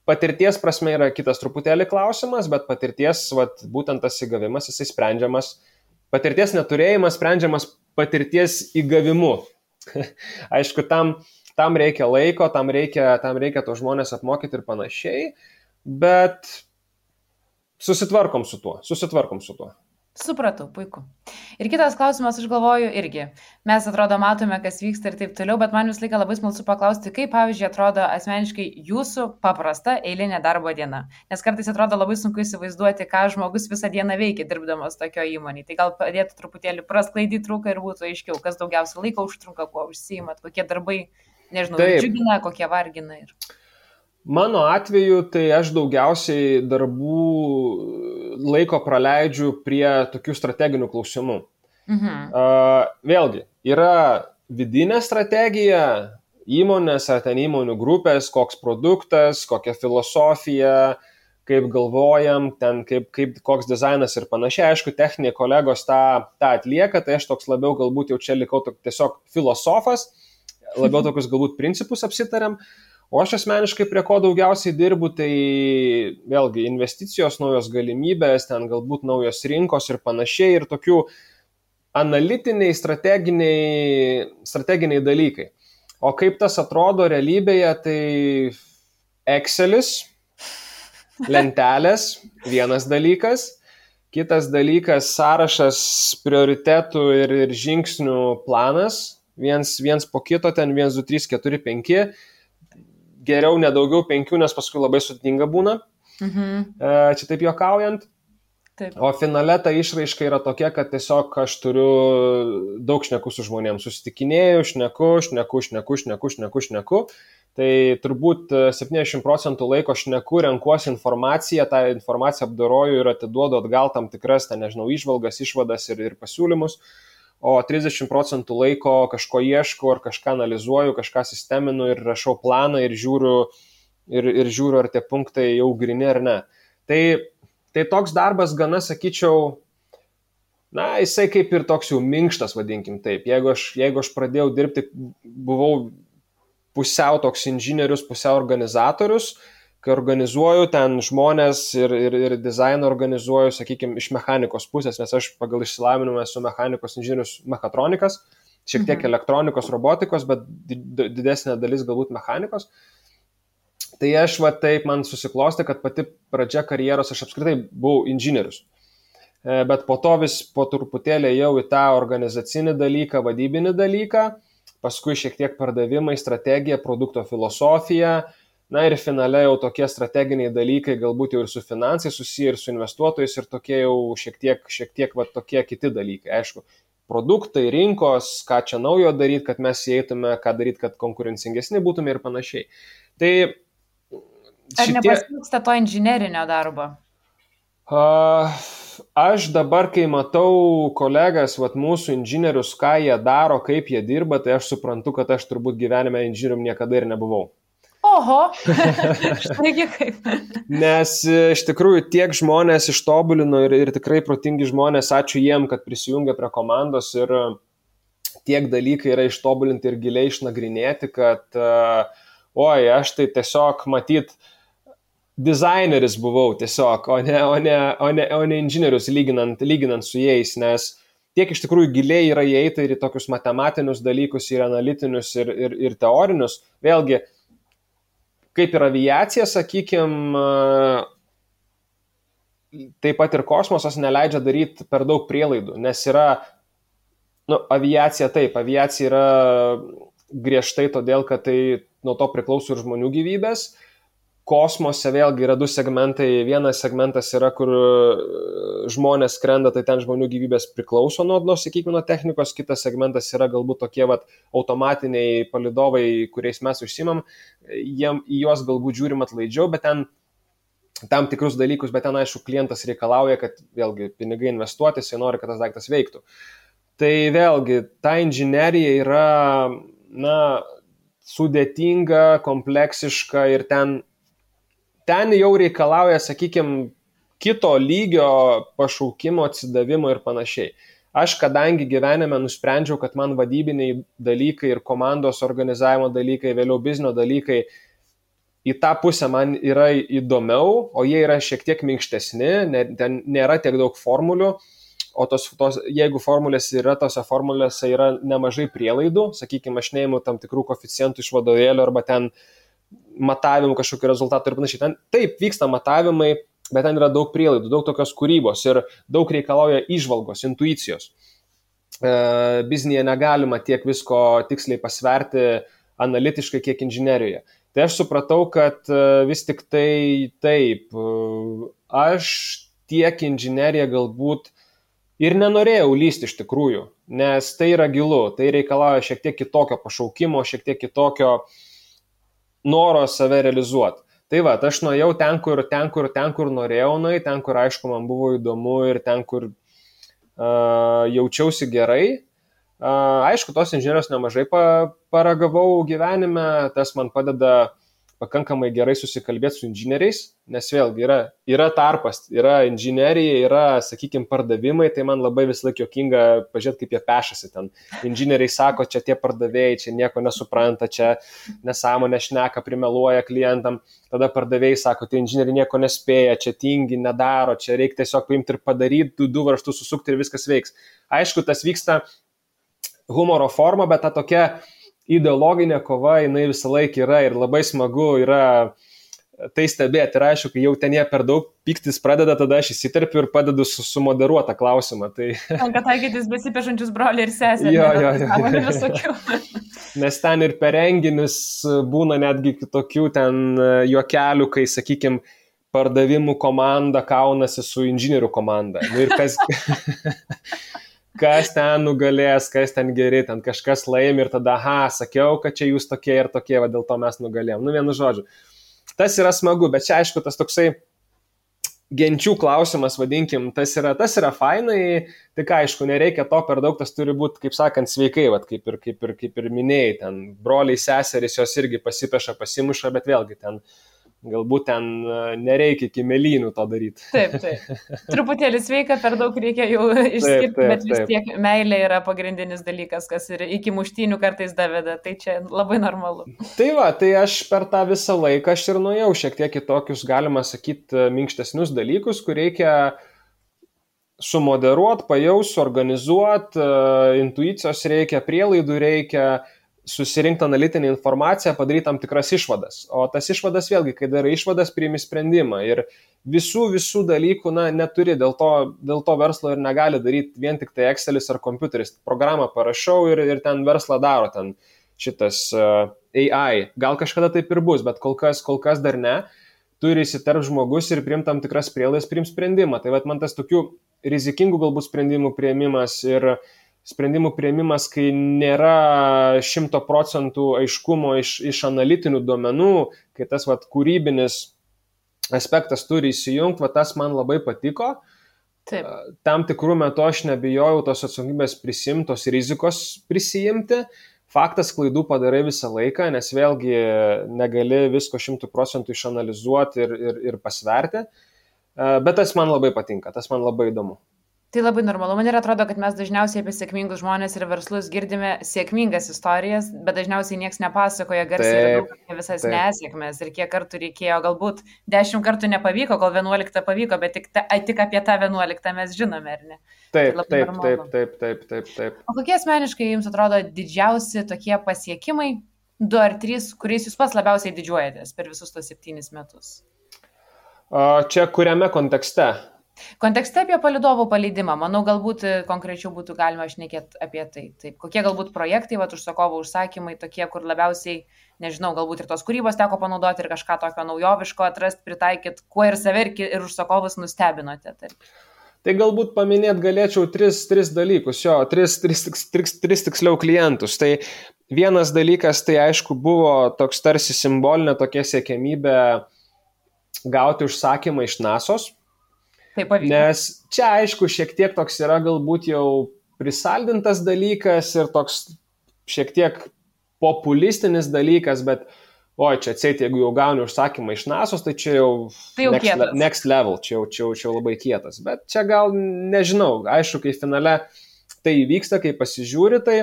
Patirties prasme yra kitas truputėlį klausimas, bet patirties, būtent tas įgavimas, jisai sprendžiamas. Patirties neturėjimas sprendžiamas patirties įgavimu. Aišku, tam reikia laiko, tam reikia to žmonės apmokyti ir panašiai. Bet susitvarkom su tuo. Supratau, puiku. Ir kitas klausimas, aš galvoju, irgi. Mes atrodo matome, kas vyksta ir taip toliau, bet man vis laiką labai smalsu paklausti, kaip, pavyzdžiui, atrodo asmeniškai jūsų paprasta eilinė darbo diena. Nes kartais atrodo labai sunku įsivaizduoti, ką žmogus visą dieną veikia dirbdamas tokio įmonėje. Tai gal padėtų truputėlį prasklaidyti trūką ir būtų aiškiau, kas daugiausia laiko užtrunka, kuo užsiimat, kokie darbai, nežinau, džiugina, kokie vargina. Mano atveju, tai aš daugiausiai darbų laiko praleidžiu prie tokių strateginių klausimų. Vėlgi, yra vidinė strategija įmonės ar ten įmonių grupės, koks produktas, kokia filosofija, kaip galvojam, ten koks dizainas ir panašiai. Aišku, techniniai kolegos tą atlieka, tai aš toks labiau galbūt jau čia likau tiesiog filosofas, labiau tokius galbūt principus apsitariam. O aš asmeniškai prie ko daugiausiai dirbu, tai vėlgi investicijos, naujos galimybės, ten galbūt naujos rinkos ir panašiai ir tokių analitiniai, strateginiai dalykai. O kaip tas atrodo realybėje, tai Excelis, lentelės, vienas dalykas, kitas dalykas sąrašas prioritetų ir žingsnių planas, viens po kito, ten 1, 2, 3, 4, 5, geriau nedaugiau 5, nes paskui labai sudėtinga būna, čia taip juokaujant. Taip. O finale ta išraiška yra tokia, kad tiesiog aš turiu daug šnekų su žmonėms, susitikinėju, šneku. Tai turbūt 70% laiko šneku, renkuosi informaciją, tą informaciją apdoroju ir atiduodu atgal tam tikras, įžvalgas, išvadas ir pasiūlymus. O 30% laiko kažko ieškau ar kažką analizuoju, kažką sisteminu ir rašau planą ir žiūriu, ar tie punktai jau grini ar ne. Tai toks darbas gana, sakyčiau, jisai kaip ir toks jau minkštas, vadinkim taip. Jeigu aš pradėjau dirbti, buvau pusiau toks inžinierius, pusiau organizatorius, kai organizuoju ten žmonės ir dizainą organizuoju, sakykime, iš mechanikos pusės, nes aš pagal išsilavinimą esu mechanikos inžinierius mechatronikas, šiek tiek elektronikos, robotikos, bet didesnė dalis galbūt mechanikos. Tai aš taip man susiklostė, kad pati pradžia karjeros aš apskritai buvau inžinierius. Bet po to vis po truputėlį jau į tą organizacinį dalyką, vadybinį dalyką, paskui šiek tiek pardavimai, strategija, produkto filosofija, ir finale jau tokie strateginiai dalykai, galbūt jau ir su finansai susiję, ir su investuotojais, ir tokie jau šiek tiek tokie kiti dalykai. Aišku, produktai, rinkos, ką čia naujo daryti, kad mes įeitume, ką daryti, kad konkurencingesni būtume ir panašiai. Tai Ar nepasiilgsta to inžinerinio darbo? Aš dabar, kai matau kolegas, mūsų inžinierius, ką jie daro, kaip jie dirba, tai aš suprantu, kad aš turbūt gyvenime inžinierium niekada ir nebuvau. Oho, štaigi kaip. Nes iš tikrųjų tiek žmonės ištobulino ir tikrai protingi žmonės, ačiū jiem, kad prisijungia prie komandos ir tiek dalykai yra ištobulinti ir giliai išnagrinėti, kad aš tai tiesiog matyt dizaineris buvau tiesiog, o ne inžinierius lyginant su jais, nes tiek iš tikrųjų giliai yra įeita ir į tokius matematinius dalykus, ir analitinius, ir teorinius. Vėlgi, kaip ir aviacija, sakykime, taip pat ir kosmosas neleidžia daryti per daug prielaidų, nes yra, aviacija yra griežtai todėl, kad tai nuo to priklauso ir žmonių gyvybės. Kosmose vėlgi yra 2 segmentai. Vienas segmentas yra, kur žmonės skrenda, tai ten žmonių gyvybės priklauso nuo technikos. Kitas segmentas yra galbūt tokie automatiniai palydovai, kuriais mes užsimam. Į juos galbūt žiūrim atlaidžiau, bet ten tam tikrus dalykus, bet ten aišku klientas reikalauja, kad vėlgi pinigai investuoti, jis nori, kad tas daiktas veiktų. Tai vėlgi, ta inžinerija yra, sudėtinga, kompleksiška ir ten jau reikalauja, sakykime, kito lygio pašaukimo, atsidavimo ir panašiai. Aš, kadangi gyvenime nusprendžiau, kad man vadybiniai dalykai ir komandos organizavimo dalykai, vėliau biznio dalykai, į tą pusę man yra įdomiau, o jie yra šiek tiek minkštesni, ten nėra tiek daug formulių, o jeigu formulės yra, tose formulėse yra nemažai prielaidų, sakykime, aš neimu tam tikrų koeficientų iš vadovėlio arba ten matavimų kažkokių rezultatų ir panašiai. Ten taip vyksta matavimai, bet ten yra daug prielaidų, daug tokios kūrybos ir daug reikalauja įžvalgos, intuicijos. Biznėje negalima tiek visko tiksliai pasverti analitiškai, kiek inžinerijoje. Tai aš supratau, kad vis tik tai taip, aš tiek inžineriją galbūt ir nenorėjau lysti iš tikrųjų, nes tai yra gilu, tai reikalauja šiek tiek kitokio pašaukimo, šiek tiek kitokio noro save realizuoti. Tai va, aš nuėjau ten, kur norėjau nueiti, ten, kur aišku man buvo įdomu ir ten, kur jaučiausi gerai. Aišku, tos inžinierijos nemažai paragavau gyvenime, tas man padeda pakankamai gerai susikalbėti su inžinieriais, nes vėlgi yra tarpas, yra inžinerija, yra, sakykime, pardavimai, tai man labai vis laik juokinga pažiūrėti, kaip jie pešasi ten. Inžinieriai sako, čia tie pardavėjai, čia nieko nesupranta, čia nesąmonė šneka, primeluoja klientam, tada pardavėjai sako, tai inžinieriai nieko nespėja, čia tingi, nedaro, čia reikia tiesiog paimti ir padaryti, du varžtus susukti ir viskas veiks. Aišku, tas vyksta humoro forma, bet ta tokia ideologinė kova, jinai visą laiką yra ir labai smagu yra tai stebėti. Ir aišku, kai jau ten jie per daug piktis pradeda, tada aš įsiterpiu ir padedu sumoderuotą klausimą. Tai... Tenka taikytis besipešančius broliai ir sesę. Jo. Nes ten ir per renginius būna netgi tokių ten juokelių, kai, sakykime, pardavimų komanda kaunasi su inžinierių komanda. Ir kas ten nugalės, kas ten geri, ten kažkas laimi ir tada, sakiau, kad čia jūs tokie ir tokie, va, dėl to mes nugalėjom. Vienu žodžiu. Tas yra smagu, bet čia aišku, tas toksai genčių klausimas, vadinkim, tas yra fainai, tik aišku, nereikia to per daug, tas turi būti, kaip sakant, sveikai, va, kaip ir minėjai, ten broliai, seserys, jos irgi pasipeša, pasimuša, bet vėlgi ten galbūt ten nereikia iki melynų to daryti. Taip. Truputėlį sveika, per daug reikia jau išskirti, bet vis tiek meilė yra pagrindinis dalykas, kas ir iki muštynių kartais daveda, tai čia labai normalu. Tai va, tai aš per tą visą laiką aš ir nuėjau šiek tiek į tokius, galima sakyti, minkštesnius dalykus, kur reikia sumoderuoti, pajausti, organizuoti, intuicijos reikia, prielaidų reikia, susirinkti analitinę informaciją, padaryti tam tikras išvadas. O tas išvadas vėlgi, kai darai išvadas, priimi sprendimą. Ir visų dalykų neturi, dėl to verslo ir negali daryti vien tik tai Excelis ar kompiuteris. Programą parašau ir ten verslą daro, ten šitas AI. Gal kažkada taip ir bus, bet kol kas dar ne. Turi įsiterp žmogus ir priimti tam tikras prielaidas, priimti sprendimą. Tai man tas tokių rizikingų galbūt sprendimų priėmimas ir sprendimų priėmimas, kai nėra 100% aiškumo iš analitinių duomenų, kai tas kūrybinis aspektas turi įsijungti, tas man labai patiko. Taip. Tam tikrų metų aš nebijojau tos atsakomybės prisimti, tos rizikos prisijimti. Faktas, klaidų padarai visą laiką, nes vėlgi negali visko 100% išanalizuoti ir pasverti. Bet tas man labai patinka, tas man labai įdomu. Tai labai normalu. Man ir atrodo, kad mes dažniausiai apie sėkmingus žmonės ir verslus girdime sėkmingas istorijas, bet dažniausiai niekas nepasakoja garsiai ir daug apie visas nesėkmės ir kiek kartų reikėjo, galbūt 10 kartų nepavyko, kol 11 pavyko, bet tik apie tą 11 mes žinome, ar ne? Taip. O kokie asmeniškai jums atrodo didžiausi tokie pasiekimai, 2 ar 3, kuriais jūs pats labiausiai didžiuojatės per visus tos 7 metus? Čia kuriame kontekste? Kontekste apie palydovų paleidimą, manau, galbūt konkrečiau būtų galima šnekėti apie tai. Taip, kokie galbūt projektai, užsakovo užsakymai tokie, kur labiausiai, nežinau, galbūt ir tos kūrybos teko panaudoti ir kažką tokio naujoviško atrasti, pritaikyti, kuo ir save ir užsakovus nustebinote. Taip. Tai galbūt paminėti galėčiau 3 dalykus, 3 tiksliau klientus. Tai vienas dalykas, tai aišku, buvo toks tarsi simbolinė tokia siekiamybė gauti užsakymą iš NASO's. Nes čia, aišku, šiek tiek toks yra galbūt jau prisaldintas dalykas ir toks šiek tiek populistinis dalykas, bet čia atseit, jeigu jau gauni užsakymą iš NASO's, tai čia jau next level, čia jau labai kietas. Bet čia gal nežinau, aišku, kai finale tai vyksta, kai pasižiūri, tai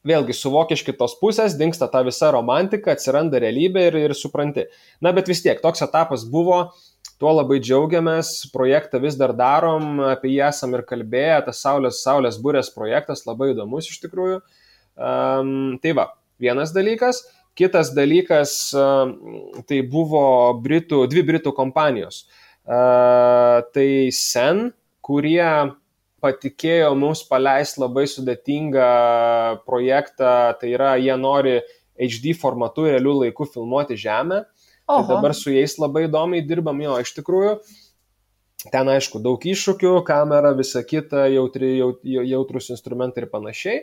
vėlgi suvoki iš kitos pusės, dingsta ta visa romantika, atsiranda realybė ir supranti. Na, bet vis tiek, toks etapas buvo. Tuo labai džiaugiamės, projektą vis dar darom, apie jį esam ir kalbėję, tas Saulės burės projektas labai įdomus iš tikrųjų. Tai va, vienas dalykas. Kitas dalykas, tai buvo dvi britų kompanijos. Tai Sen, kurie patikėjo mums paleisti labai sudėtingą projektą, tai yra, jie nori HD formatu realių laikų filmuoti Žemę. Tai dabar su jais labai įdomiai dirbam, iš tikrųjų. Ten, aišku, daug iššūkių, kamera, visa kita, jautrus instrumentai ir panašiai.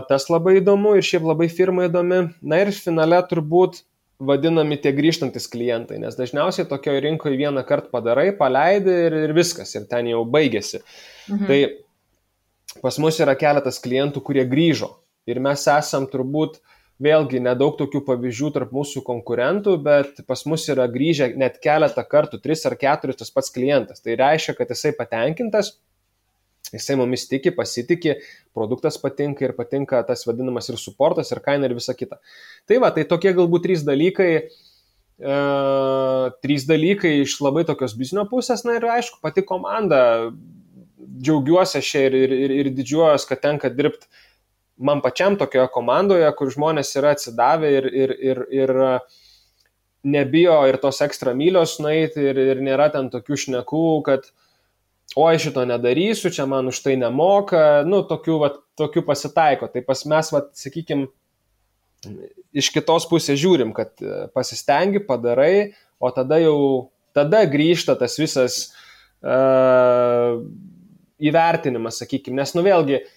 Tas labai įdomu ir šiaip labai firma įdomi. Na ir finale turbūt vadinami tie grįžtantis klientai, nes dažniausiai tokioje rinkoje vieną kartą padarai, paleidi ir viskas, ir ten jau baigėsi. Tai pas mus yra keletas klientų, kurie grįžo ir mes esam turbūt vėlgi nedaug tokių pavyzdžių tarp mūsų konkurentų, bet pas mus yra grįžę net keletą kartų, 3 ar 4 tas pats klientas. Tai reiškia, kad jisai patenkintas, jisai mumis tiki, pasitikė, produktas patinka ir patinka tas vadinamas ir suportas, ir kaina ir visa kita. Tai va, tai tokie galbūt 3 dalykai. 3 dalykai iš labai tokios biznio pusės, na ir aišku, pati komanda, džiaugiuosi aš ir didžiuojuosi, kad tenka dirbti man pačiam tokioje komandoje, kur žmonės yra atsidavę ir nebijo ir tos ekstra mylios nueiti ir nėra ten tokių šnekų, kad oi šito nedarysiu, čia man už tai nemoka, tokių pasitaiko. Tai pas mes, sakykime, iš kitos pusės žiūrim, kad pasistengi, padarai, o tada grįžta tas visas įvertinimas, sakykime, nes vėlgi,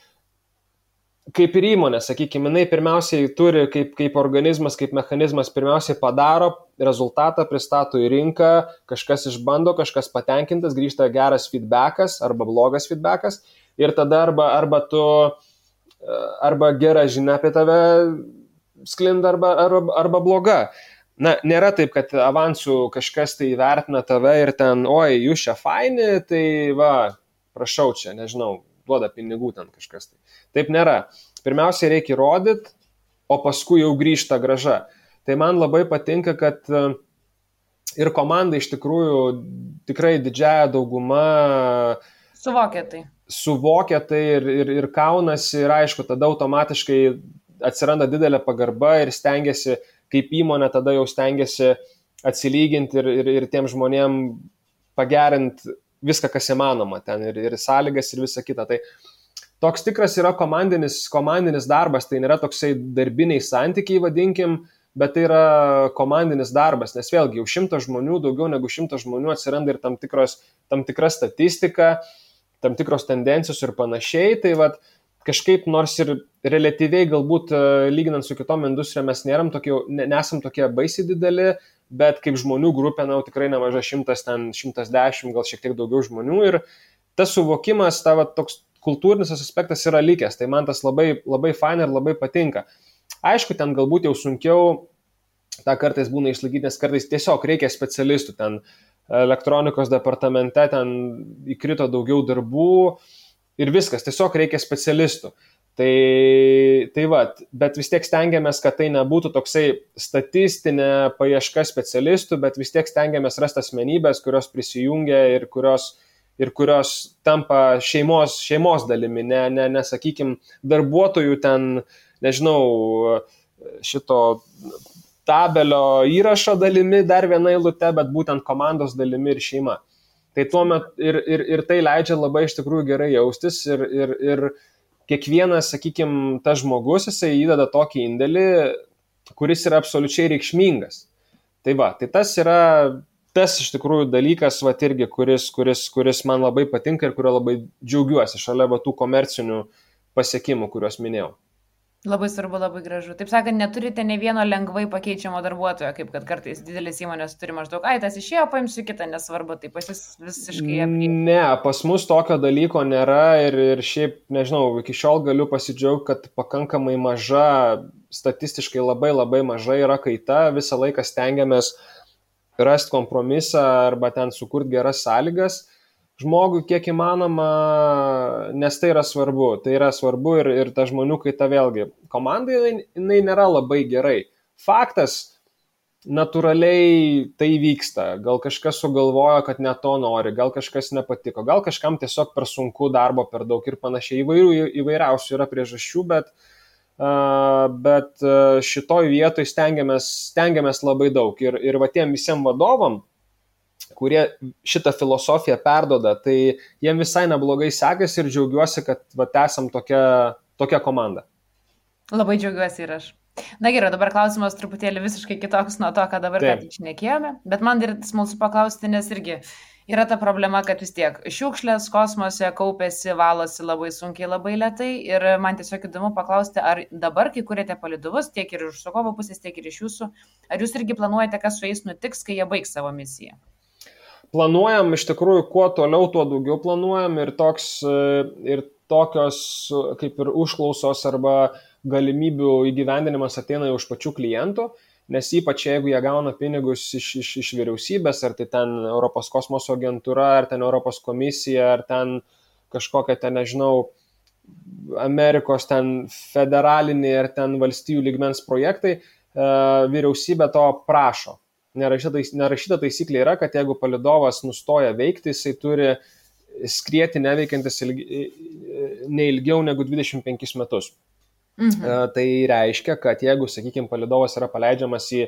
kaip ir įmonė, sakykime, jinai pirmiausiai turi kaip organizmas, kaip mechanizmas, pirmiausiai padaro, rezultatą pristato į rinką, kažkas išbando, kažkas patenkintas, grįžta geras feedbackas arba blogas feedbackas ir tada arba gera žinia apie tave sklinda arba bloga. Na, nėra taip, kad avansų kažkas tai įvertina tave ir ten, oi, jūs čia faini, tai va, prašau čia, nežinau, duoda pinigų ten kažkas. Taip nėra. Pirmiausia, reikia įrodyti, o paskui jau grįžta grąža. Tai man labai patinka, kad ir komanda iš tikrųjų tikrai didžiąją daugumą suvokia tai ir kaunasi ir aišku, tada automatiškai atsiranda didelė pagarba ir stengiasi, kaip įmonė, tada jau stengiasi atsilyginti ir tiem žmonėm pagerinti viską, kas įmanoma ten ir sąlygas ir visa kita. Tai toks tikras yra komandinis darbas, tai nėra toksai darbiniai santykiai, vadinkim, bet tai yra komandinis darbas, nes vėlgi jau 100 žmonių, daugiau negu 100 žmonių atsiranda ir tam tikra statistika, tam tikros tendencijos ir panašiai, tai vat kažkaip nors ir relatyviai galbūt lyginant su kitom industrijom mes nesam tokie baisiai dideli, bet kaip žmonių grupė, tikrai nemaža 110, gal šiek tiek daugiau žmonių ir tas suvokimas, toks kultūrinis aspektas yra likęs, tai man tas labai, labai fain ir labai patinka. Aišku, ten galbūt jau sunkiau, tą kartais būna išlaikyti, nes kartais tiesiog reikia specialistų, ten elektronikos departamente ten įkrito daugiau darbų ir viskas, tiesiog reikia specialistų. Tai va, bet vis tiek stengiamės, kad tai nebūtų toksai statistinė paieška specialistų, bet vis tiek stengiamės rasti asmenybės, kurios prisijungia ir kurios tampa šeimos dalimi, ne sakykime, darbuotojų ten, nežinau, šito tabelio įrašo dalimi, dar viena eilute, bet būtent komandos dalimi ir šeima. Tai tuomet ir tai leidžia labai iš tikrųjų gerai jaustis ir kiekvienas, sakykime, tas žmogus, jisai įdeda tokį indėlį, kuris yra absoliučiai reikšmingas. Tai va, tai tas yra tas iš tikrųjų dalykas, va, irgi, kuris man labai patinka ir kurio labai džiaugiuosi šalia tų komercinių pasiekimų, kuriuos minėjau. Labai svarbu, labai gražu. Taip sakant, neturite ne vieno lengvai pakeičiamo darbuotojo, kaip kad kartais didelis įmonės turi maždaug, tas išėjo, paimsiu kitą, nesvarbu, tai pas jūs visiškai apriepti. Ne, pas mus tokio dalyko nėra ir šiaip, nežinau, iki šiol galiu pasidžiaugti, kad pakankamai maža, statistiškai labai labai maža yra kaita, visą laiką stengiamės rasti kompromisą arba ten sukurti geras sąlygas žmogui kiek įmanoma, nes tai yra svarbu. Tai yra svarbu ir ta žmonių kaita vėlgi. Komandai jinai nėra labai gerai. Faktas, natūraliai tai vyksta. Gal kažkas sugalvojo, kad ne to nori, gal kažkas nepatiko, gal kažkam tiesiog per sunku, darbo per daug ir panašiai. Įvairiausių yra priežasčių, bet šitoj vietoj stengiamės labai daug. Ir va tiem visiems vadovam, kurie šitą filosofiją perdoda, tai jiem visai neblogai sekasi ir džiaugiuosi, kad va, esam tokia komanda. Labai džiaugiuosi ir aš. Na gerai, dabar klausimas truputėlį visiškai kitoks nuo to, ką dabar ką tik šnekėjome, bet man ir smalsu paklausti, nes irgi yra ta problema, kad vis tiek šiukšlės kosmose kaupėsi, valosi labai sunkiai, labai lėtai ir man tiesiog įdomu paklausti, ar dabar, kai kuriate palydovus, tiek ir iš užsakovo pusės, tiek ir iš jūsų, ar jūs irgi planuojate, kas su jais nutiks, kai jie baigs savo misiją? Planuojam, iš tikrųjų, kuo toliau, tuo daugiau planuojam ir tokios kaip ir užklausos arba galimybių įgyvendinimas ateina iš pačių klientų, nes ypač jeigu jie gauna pinigus iš vyriausybės, ar tai ten Europos kosmoso agentūra, ar ten Europos komisija, ar ten kažkokia ten, nežinau, Amerikos ten federaliniai ar ten valstijų lygmens projektai, vyriausybė to prašo. Nerašyta taisyklė yra, kad jeigu palydovas nustoja veikti, jisai turi skrieti neveikiantis ne ilgiau negu 25 metus. Tai reiškia, kad jeigu, sakykime, palydovas yra paleidžiamas į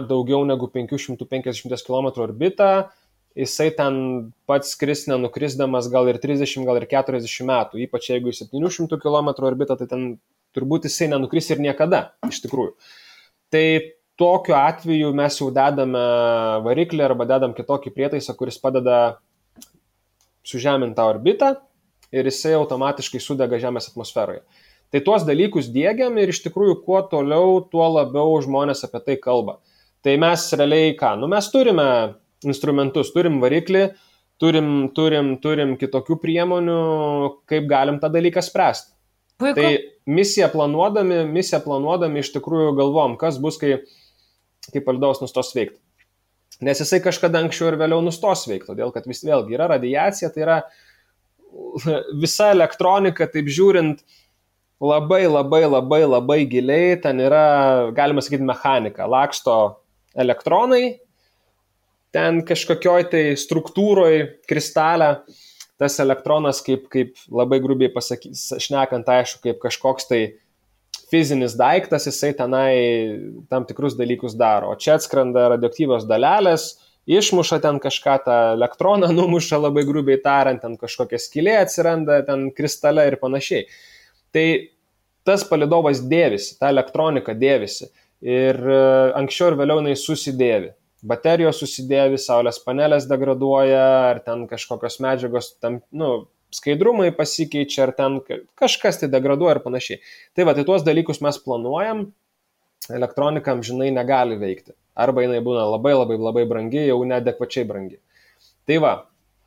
daugiau negu 550 km orbitą, jisai ten pats skris nenukrisdamas gal ir 30, gal ir 40 metų. Ypač jeigu į 700 km orbitą, tai ten turbūt jisai nenukris ir niekada, iš tikrųjų. Tai tokiu atveju mes jau dedame variklį arba dedam kitokį prietaisą, kuris padeda sužeminti tą orbitą ir jisai automatiškai sudega Žemės atmosferoje. Tai tuos dalykus diegiam ir iš tikrųjų kuo toliau, tuo labiau žmonės apie tai kalba. Tai mes realiai ką? Mes turime instrumentus, turim variklį, turim kitokių priemonių, kaip galim tą dalyką spręsti. Puiku. Tai misiją planuodami iš tikrųjų galvom, kas bus, kai palydovas nustos veikti. Nes jisai kažkada anksčiau ir vėliau nustos veikti, todėl kad vėlgi yra radiacija, tai yra visa elektronika, taip žiūrint, labai giliai, ten yra, galima sakyti, mechanika, laksto elektronai, ten kažkokioj tai struktūroj, kristalė, tas elektronas, kaip labai grubiai šnekant, aišku, kaip kažkoks tai fizinis daiktas, jisai tenai tam tikrus dalykus daro. O čia atskrenda radioaktyvios dalelės, išmuša ten kažką, tą elektroną numuša labai grubiai tariant, ten kažkokia skylė atsiranda, ten kristale ir panašiai. Tai tas palydovas dėvisi, ta elektronika dėvisi ir anksčiau ir vėliau jinai susidėvi. Baterijos susidėvi, saulės panelės degraduoja, ar ten kažkokios medžiagos tam, skaidrumai pasikeičia, ar ten kažkas tai degraduoja ir panašiai. Tai va, tai tuos dalykus mes planuojam, elektronika amžinai negali veikti. Arba jinai būna labai brangi, jau neadekvačiai brangi. Tai va.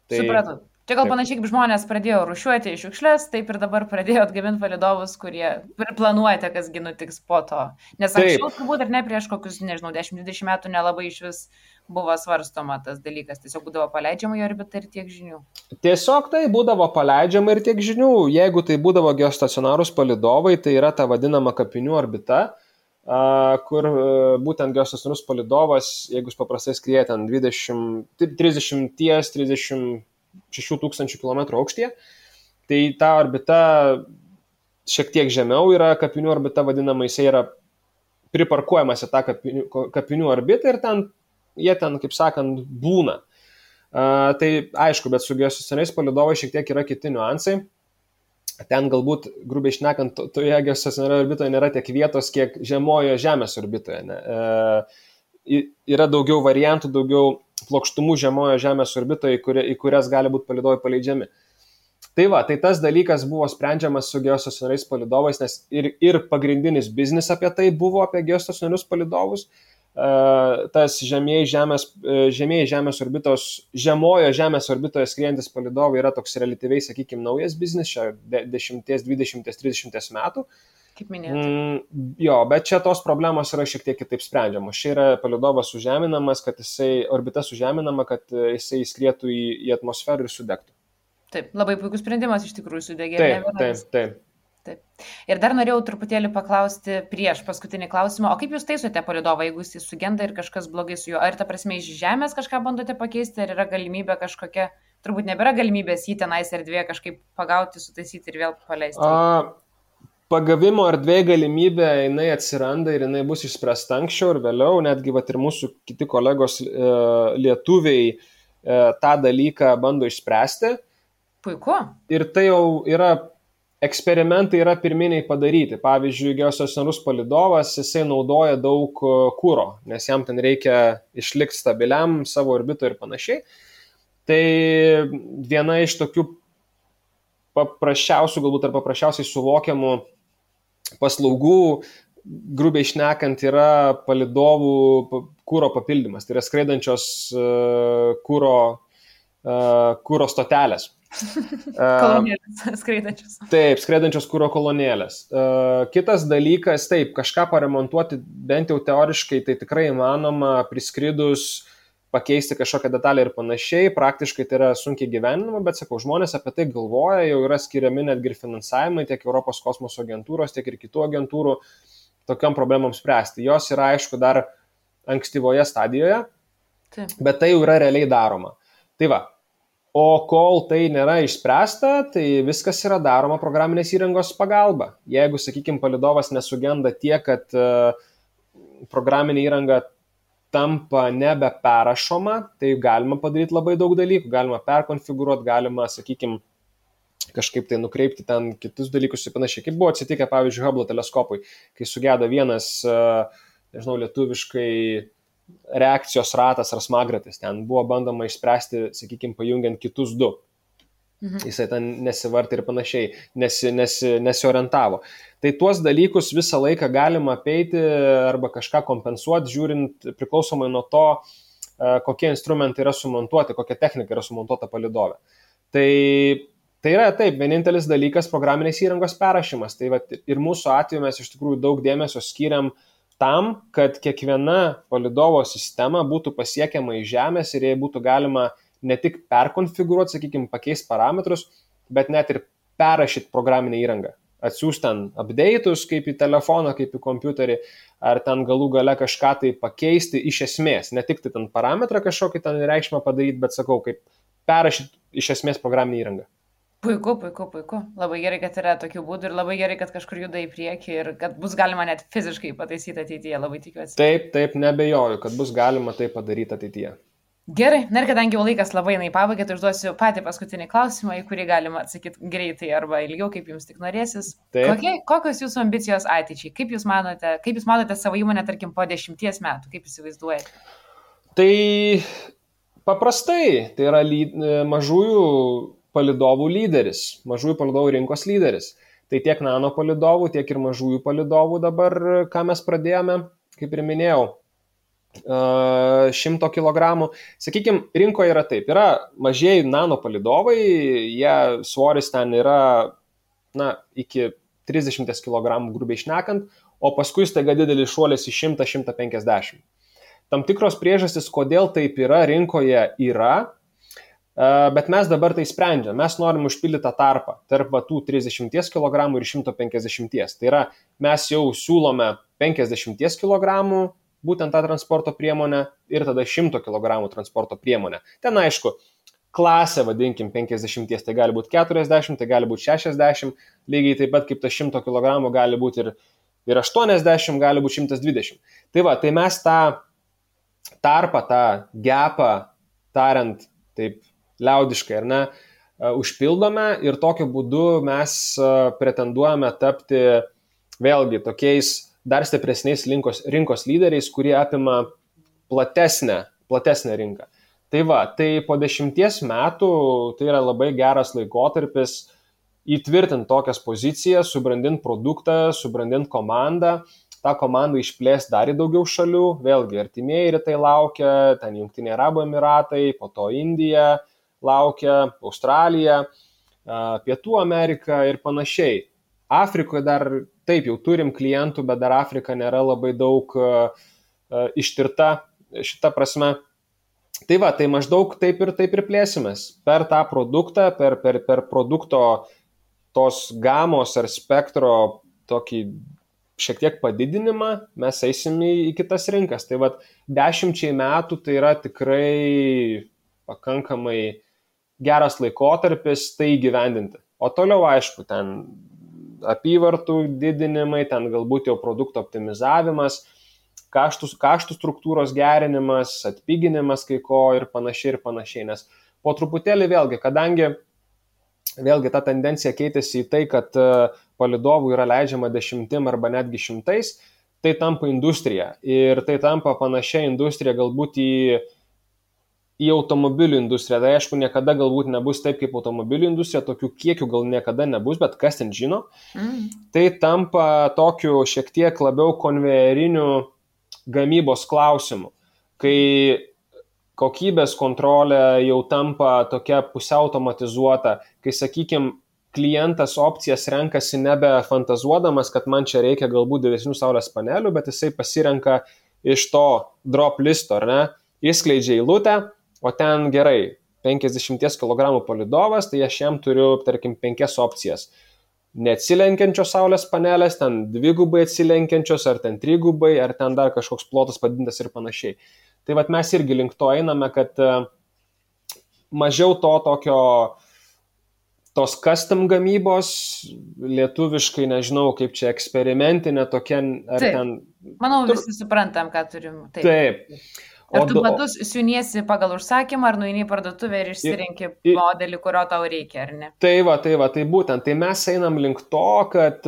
Supratau. Čia gal panašiai kaip žmonės pradėjo rūšiuoti šiukšles, taip ir dabar pradėjo atgaminti palydovus, kurie planuojate, kasgi nutiks po to. Nes anksčiau turbūt ir ne prieš kokius, 10-20 metų nelabai iš vis buvo svarstoma tas dalykas. Tiesiog būdavo paleidžiama į orbitą ir tiek žinių. Tiesiog tai būdavo paleidžiama ir tiek žinių. Jeigu tai būdavo geostacionarūs palydovai, tai yra ta vadinama kapinių orbita, kur būtent geostacionarus palydovas, jeigu jis paprastai skrieja ten 36 tūkstančių kilometrų aukštyje, tai ta orbita šiek tiek žemiau yra kapinių orbita vadinama, jisai yra priparkuojamas į tą kapinių orbitą ir jie ten, kaip sakant, būna. Tai aišku, bet su geostacionariais palydovais šiek tiek yra kiti niuansai. Ten galbūt, grubiai šnekant, toje geostacionarioje orbitoje nėra tiek vietos, kiek žemojoje Žemės orbitoje. Yra daugiau variantų, daugiau plokštumų žemojo Žemės orbitoje, į kurias gali būti palydovai paleidžiami. Tai va, tai tas dalykas buvo sprendžiamas su geostacionariais palydovais, nes ir pagrindinis biznis apie tai buvo, apie geostacionarius palydovus. Tas žemieji Žemės orbitos, žemojo Žemės orbitoje skriejantis palydovai yra toks relatyviai, sakykime, naujas biznis, čia 10, 20, 30 metų. Kaip minėjote. Jo, bet čia tos problemos yra šiek tiek kitaip sprendžiamos. Čia yra palydovas sužeminamas, orbita sužeminama, kad jisai skrietų į atmosferą ir sudegtų. Taip, labai puikus sprendimas iš tikrųjų sudegė. Taip. Ir dar norėjau truputėlį paklausti prieš paskutinį klausimą, o kaip jūs taisote palydovą, jeigu jis sugenda ir kažkas blogai su juo? Ar ta prasme iš Žemės kažką bandote pakeisti, ar yra galimybė kažkokia, turbūt nebėra galimybės jį tenais erdvėje kažkaip pagauti, sutaisyti ir vėl paleisti? pagavimo erdvėje galimybė, jinai atsiranda ir jinai bus išspręsta anksčiau ir vėliau, netgi vat, ir mūsų kiti kolegos lietuviai tą dalyką bando išspręsti. Puiku. Ir tai jau yra, eksperimentai yra pirminiai padaryti. Pavyzdžiui, geostacionarus palydovas, jisai naudoja daug kuro, nes jam ten reikia išlikti stabiliam savo orbitoje ir panašiai. Tai viena iš tokių paprasčiausių, galbūt ar paprasčiausiai suvokiamų paslaugų, grubiai šnekant, yra palydovų kūro papildymas. Tai yra skraidančios kūro stotelės. Kolonėlės skraidančios. Taip, skraidančios kūro kolonėlės. Kitas dalykas, taip, kažką paremontuoti, bent jau teoriškai, tai tikrai įmanoma priskridus pakeisti kažkokią detalę ir panašiai, praktiškai tai yra sunkiai gyvenama, bet sakau, žmonės apie tai galvoja, jau yra skiriami netgi ir finansavimai tiek Europos kosmoso agentūros, tiek ir kitų agentūrų tokiam problemams spręsti. Jos yra, aišku, dar ankstyvoje stadijoje, bet tai jau yra realiai daroma. Tai va, o kol tai nėra išspręsta, tai viskas yra daroma programinės įrangos pagalba. Jeigu, sakykime, palydovas nesugenda tiek, kad programinė įranga tampa nebeperašoma, tai galima padaryti labai daug dalykų, galima perkonfigūruoti, galima, sakykime, kažkaip tai nukreipti ten kitus dalykus ir panašiai. Kaip buvo atsitikę, pavyzdžiui, Hubble teleskopui, kai sugedo vienas, nežinau, lietuviškai reakcijos ratas ar smagratis, ten buvo bandoma išspręsti, sakykime, pajungiant kitus du. Jisai ten nesivartė ir panašiai, nesiorientavo. Tai tuos dalykus visą laiką galima apeiti arba kažką kompensuoti, žiūrint priklausomai nuo to, kokie instrumentai yra sumontuoti, kokia technika yra sumontuota palydove. Tai yra taip, vienintelis dalykas programinės įrangos perrašymas. Tai va, ir mūsų atveju mes iš tikrųjų daug dėmesio skiriam tam, kad kiekviena palydovo sistema būtų pasiekiama iš Žemės ir jai būtų galima ne tik perkonfigūruoti, sakykime, pakeisti parametrus, bet net ir perrašyti programinę įrangą. Atsiųsti ten update'us, kaip į telefoną, kaip į kompiuterį, ar ten galų gale kažką tai pakeisti iš esmės. Ne tik tai ten parametrą kažkokį ten reikšmę padaryti, bet sakau, kaip perrašyti iš esmės programinę įrangą. Puiku. Labai gerai, kad yra tokių būdų ir labai gerai, kad kažkur juda į priekį ir kad bus galima net fiziškai pataisyti ateityje, labai tikiuosi. Taip, nebejoju, kad bus galima tai padaryti ateityje. Gerai, ir kadangi jau laikas labai neįpabaigė, tai užduosiu patį paskutinį klausimą, į kurį galima atsakyti greitai arba ilgiau, kaip jums tik norėsis. Kokios jūsų ambicijos ateičiai? Kaip jūs matote savo įmonę, tarkim, po 10 metų? Kaip įsivaizduojate? Tai paprastai, tai yra mažųjų palydovų lyderis, mažųjų palydovų rinkos lyderis. Tai tiek nano palydovų, tiek ir mažųjų palydovų dabar, ką mes pradėjome, kaip ir minėjau, 100 kg. Sakykime, rinkoje yra taip, yra mažieji nano palydovai, jie svoris ten yra iki 30 kg grubiai šnekant, o paskui staiga didelis šuolis į 100-150. Tam tikros priežastys, kodėl taip yra, rinkoje yra, bet mes dabar tai sprendžiam. Mes norim užpildyti tą tarpą tarp tų 30 kg ir 150. Tai yra, mes jau siūlome 50 kg būtent tą transporto priemonę ir tada 100 kg transporto priemonę. Ten aišku, klasė, vadinkim, 50, tai gali būti 40, tai gali būti 60, lygiai taip pat kaip tas 100 kg gali būti ir 80, gali būti 120. Tai va, tai mes tą tarpą, tą gapą, tariant taip liaudiškai, ar ne, užpildome ir tokiu būdu mes pretenduojame tapti vėlgi tokiais dar stipresniais rinkos lyderiais, kurie apima platesnę rinką. Tai va, tai po 10 metų tai yra labai geras laikotarpis įtvirtinti tokias pozicijas, subrandinti produktą, subrandinti komandą, tą komandą išplėsti dar į daugiau šalių, vėlgi artimieji rytai laukia, ten Jungtiniai Arabų Emiratai, po to Indija laukia, Australija, Pietų Amerika ir panašiai. Afrikoje dar taip jau turim klientų, bet dar Afrika nėra labai daug ištirta šitą prasme. Tai va, tai maždaug taip ir plėsimės. Per tą produktą, per produkto tos gamos ar spektro tokį šiek tiek padidinimą, mes eisim į kitas rinkas. Tai va, 10 metų tai yra tikrai pakankamai geras laikotarpis tai įgyvendinti. O toliau, aišku, ten apyvartų didinimai, ten galbūt jau produkto optimizavimas, kaštų struktūros gerinimas, atpiginimas kai ko ir panašiai. Nes po truputėlį vėlgi, kadangi vėlgi ta tendencija keitėsi į tai, kad palydovų yra leidžiama 10 arba netgi 100, tai tampa industrija. Ir tai tampa panašia industrija galbūt į automobilių industriją. Tai aišku, niekada galbūt nebus taip kaip automobilių industrija, tokių kiekių gal niekada nebus, bet kas ten žino. Tai tampa tokiu šiek tiek labiau konvejeriniu gamybos klausimu, kai kokybės kontrolė jau tampa tokia pusiau automatizuota, kai, sakykime, klientas opcijas renkasi nebe fantazuodamas, kad man čia reikia galbūt didesnių saulės panelių, bet jisai pasirenka iš to drop listo, ar ne, įskleidžia eilutę, o ten gerai, 50 kg palydovas, tai aš jam turiu, tarkim, 5 opcijas. Neatsilenkiančios saulės panelės, ten 2 atsilenkiančios, ar ten 3, ar ten dar kažkoks plotas padidintas ir panašiai. Tai vat mes irgi link to einame, kad mažiau tos custom gamybos, lietuviškai nežinau, kaip čia eksperimentinė tokia, ar taip, ten... Manau, visi suprantam, ką turim. Taip. Ar tu batus siuniesi pagal užsakymą, ar nueini į parduotuvę ir išsirinki modelį, kurio tau reikia, ar ne? Tai būtent. Tai mes einam link to, kad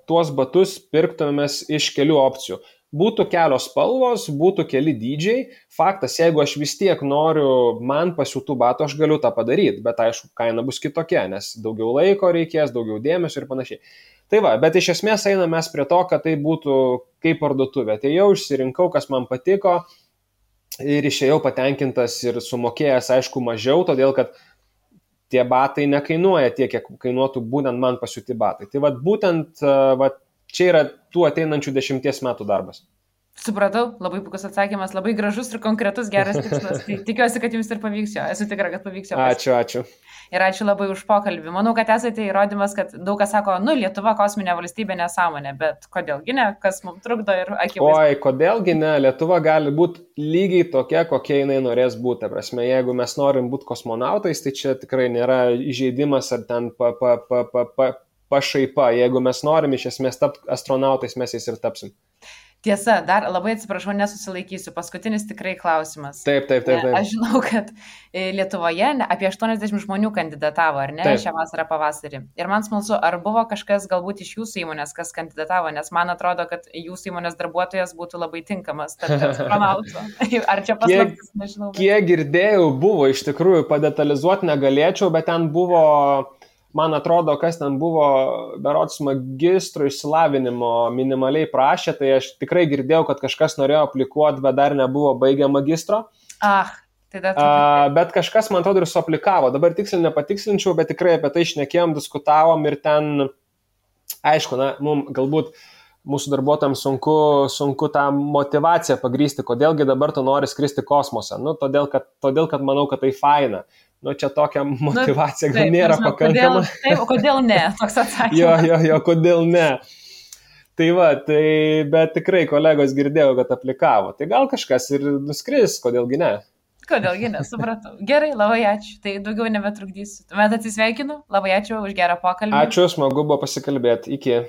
tuos batus pirktumėmės iš kelių opcijų. Būtų kelios spalvos, būtų keli dydžiai. Faktas, jeigu aš vis tiek noriu man pasiūtų batų, aš galiu tą padaryti, bet aišku, kaina bus kitokia, nes daugiau laiko reikės, daugiau dėmesio ir panašiai. Tai va, bet iš esmės einame mes prie to, kad tai būtų kaip parduotuvė. Tai jau išsirinkau, kas man patiko ir išėjau patenkintas ir sumokėjęs, aišku, mažiau, todėl kad tie batai nekainuoja tiek, kiek kainuotų būtent man pasiūti batai. Tai va, būtent čia yra tų ateinančių 10 metų darbas. Supratau, labai puikus atsakymas, labai gražus ir konkretus, geras tikslas. Tai tikiuosi, kad jums ir pavyks jo. Esu tikra, kad pavyks jo. Ačiū. Ir ačiū labai už pokalbį. Manau, kad esate įrodymas, kad daug kas sako, Lietuva kosminė valstybė nesąmonė, bet kodėlgi ne, kas mums trukdo ir akivaizdu. Oi, kodėlgi ne, Lietuva gali būti lygiai tokia, kokia jinai norės būti. Ta prasme, jeigu mes norim būti kosmonautais, tai čia tikrai nėra įžeidimas ar ten pašaipa. Jeigu mes norim iš esmės tapti astronautais, mes jais ir tapsim. Tiesa, dar labai atsiprašau, nesusilaikysiu. Paskutinis tikrai klausimas. Taip. Aš žinau, kad Lietuvoje apie 80 žmonių kandidatavo, ar ne, taip, šią vasarą pavasarį. Ir man smalsu, ar buvo kažkas galbūt iš jūsų įmonės, kas kandidatavo, nes man atrodo, kad jūsų įmonės darbuotojas būtų labai tinkamas tarp astronautų. Ar čia paslaptis, nežinau. Kiek girdėjau, buvo, iš tikrųjų, padetalizuoti negalėčiau, bet ten buvo... Man atrodo, kas ten buvo, berods magistro išsilavinimo minimaliai prašė, tai aš tikrai girdėjau, kad kažkas norėjo aplikuoti, bet dar nebuvo baigę magistro. Bet kažkas, man atrodo, ir suaplikavo. Dabar tiksliai nepatikslinčiau, bet tikrai apie tai šnekėjom, diskutavom ir ten, aišku, mums galbūt mūsų darbuotojams sunku tą motivaciją pagrįsti, kodėlgi dabar tu nori skristi kosmosą. Todėl, kad manau, kad tai faina. Čia tokia motivacija gal nėra pakankama. Kodėl ne? Toks atsakymas. Jo, kodėl ne? Bet tikrai kolegos girdėjau, kad aplikavo. Tai gal kažkas ir nuskris, kodėlgi ne? Kodėlgi ne, supratau. Gerai, labai ačiū. Tai daugiau nebetrukdysiu. Tuomet atsisveikinu. Labai ačiū už gerą pokalbį. Ačiū, smagu buvo pasikalbėti. Iki.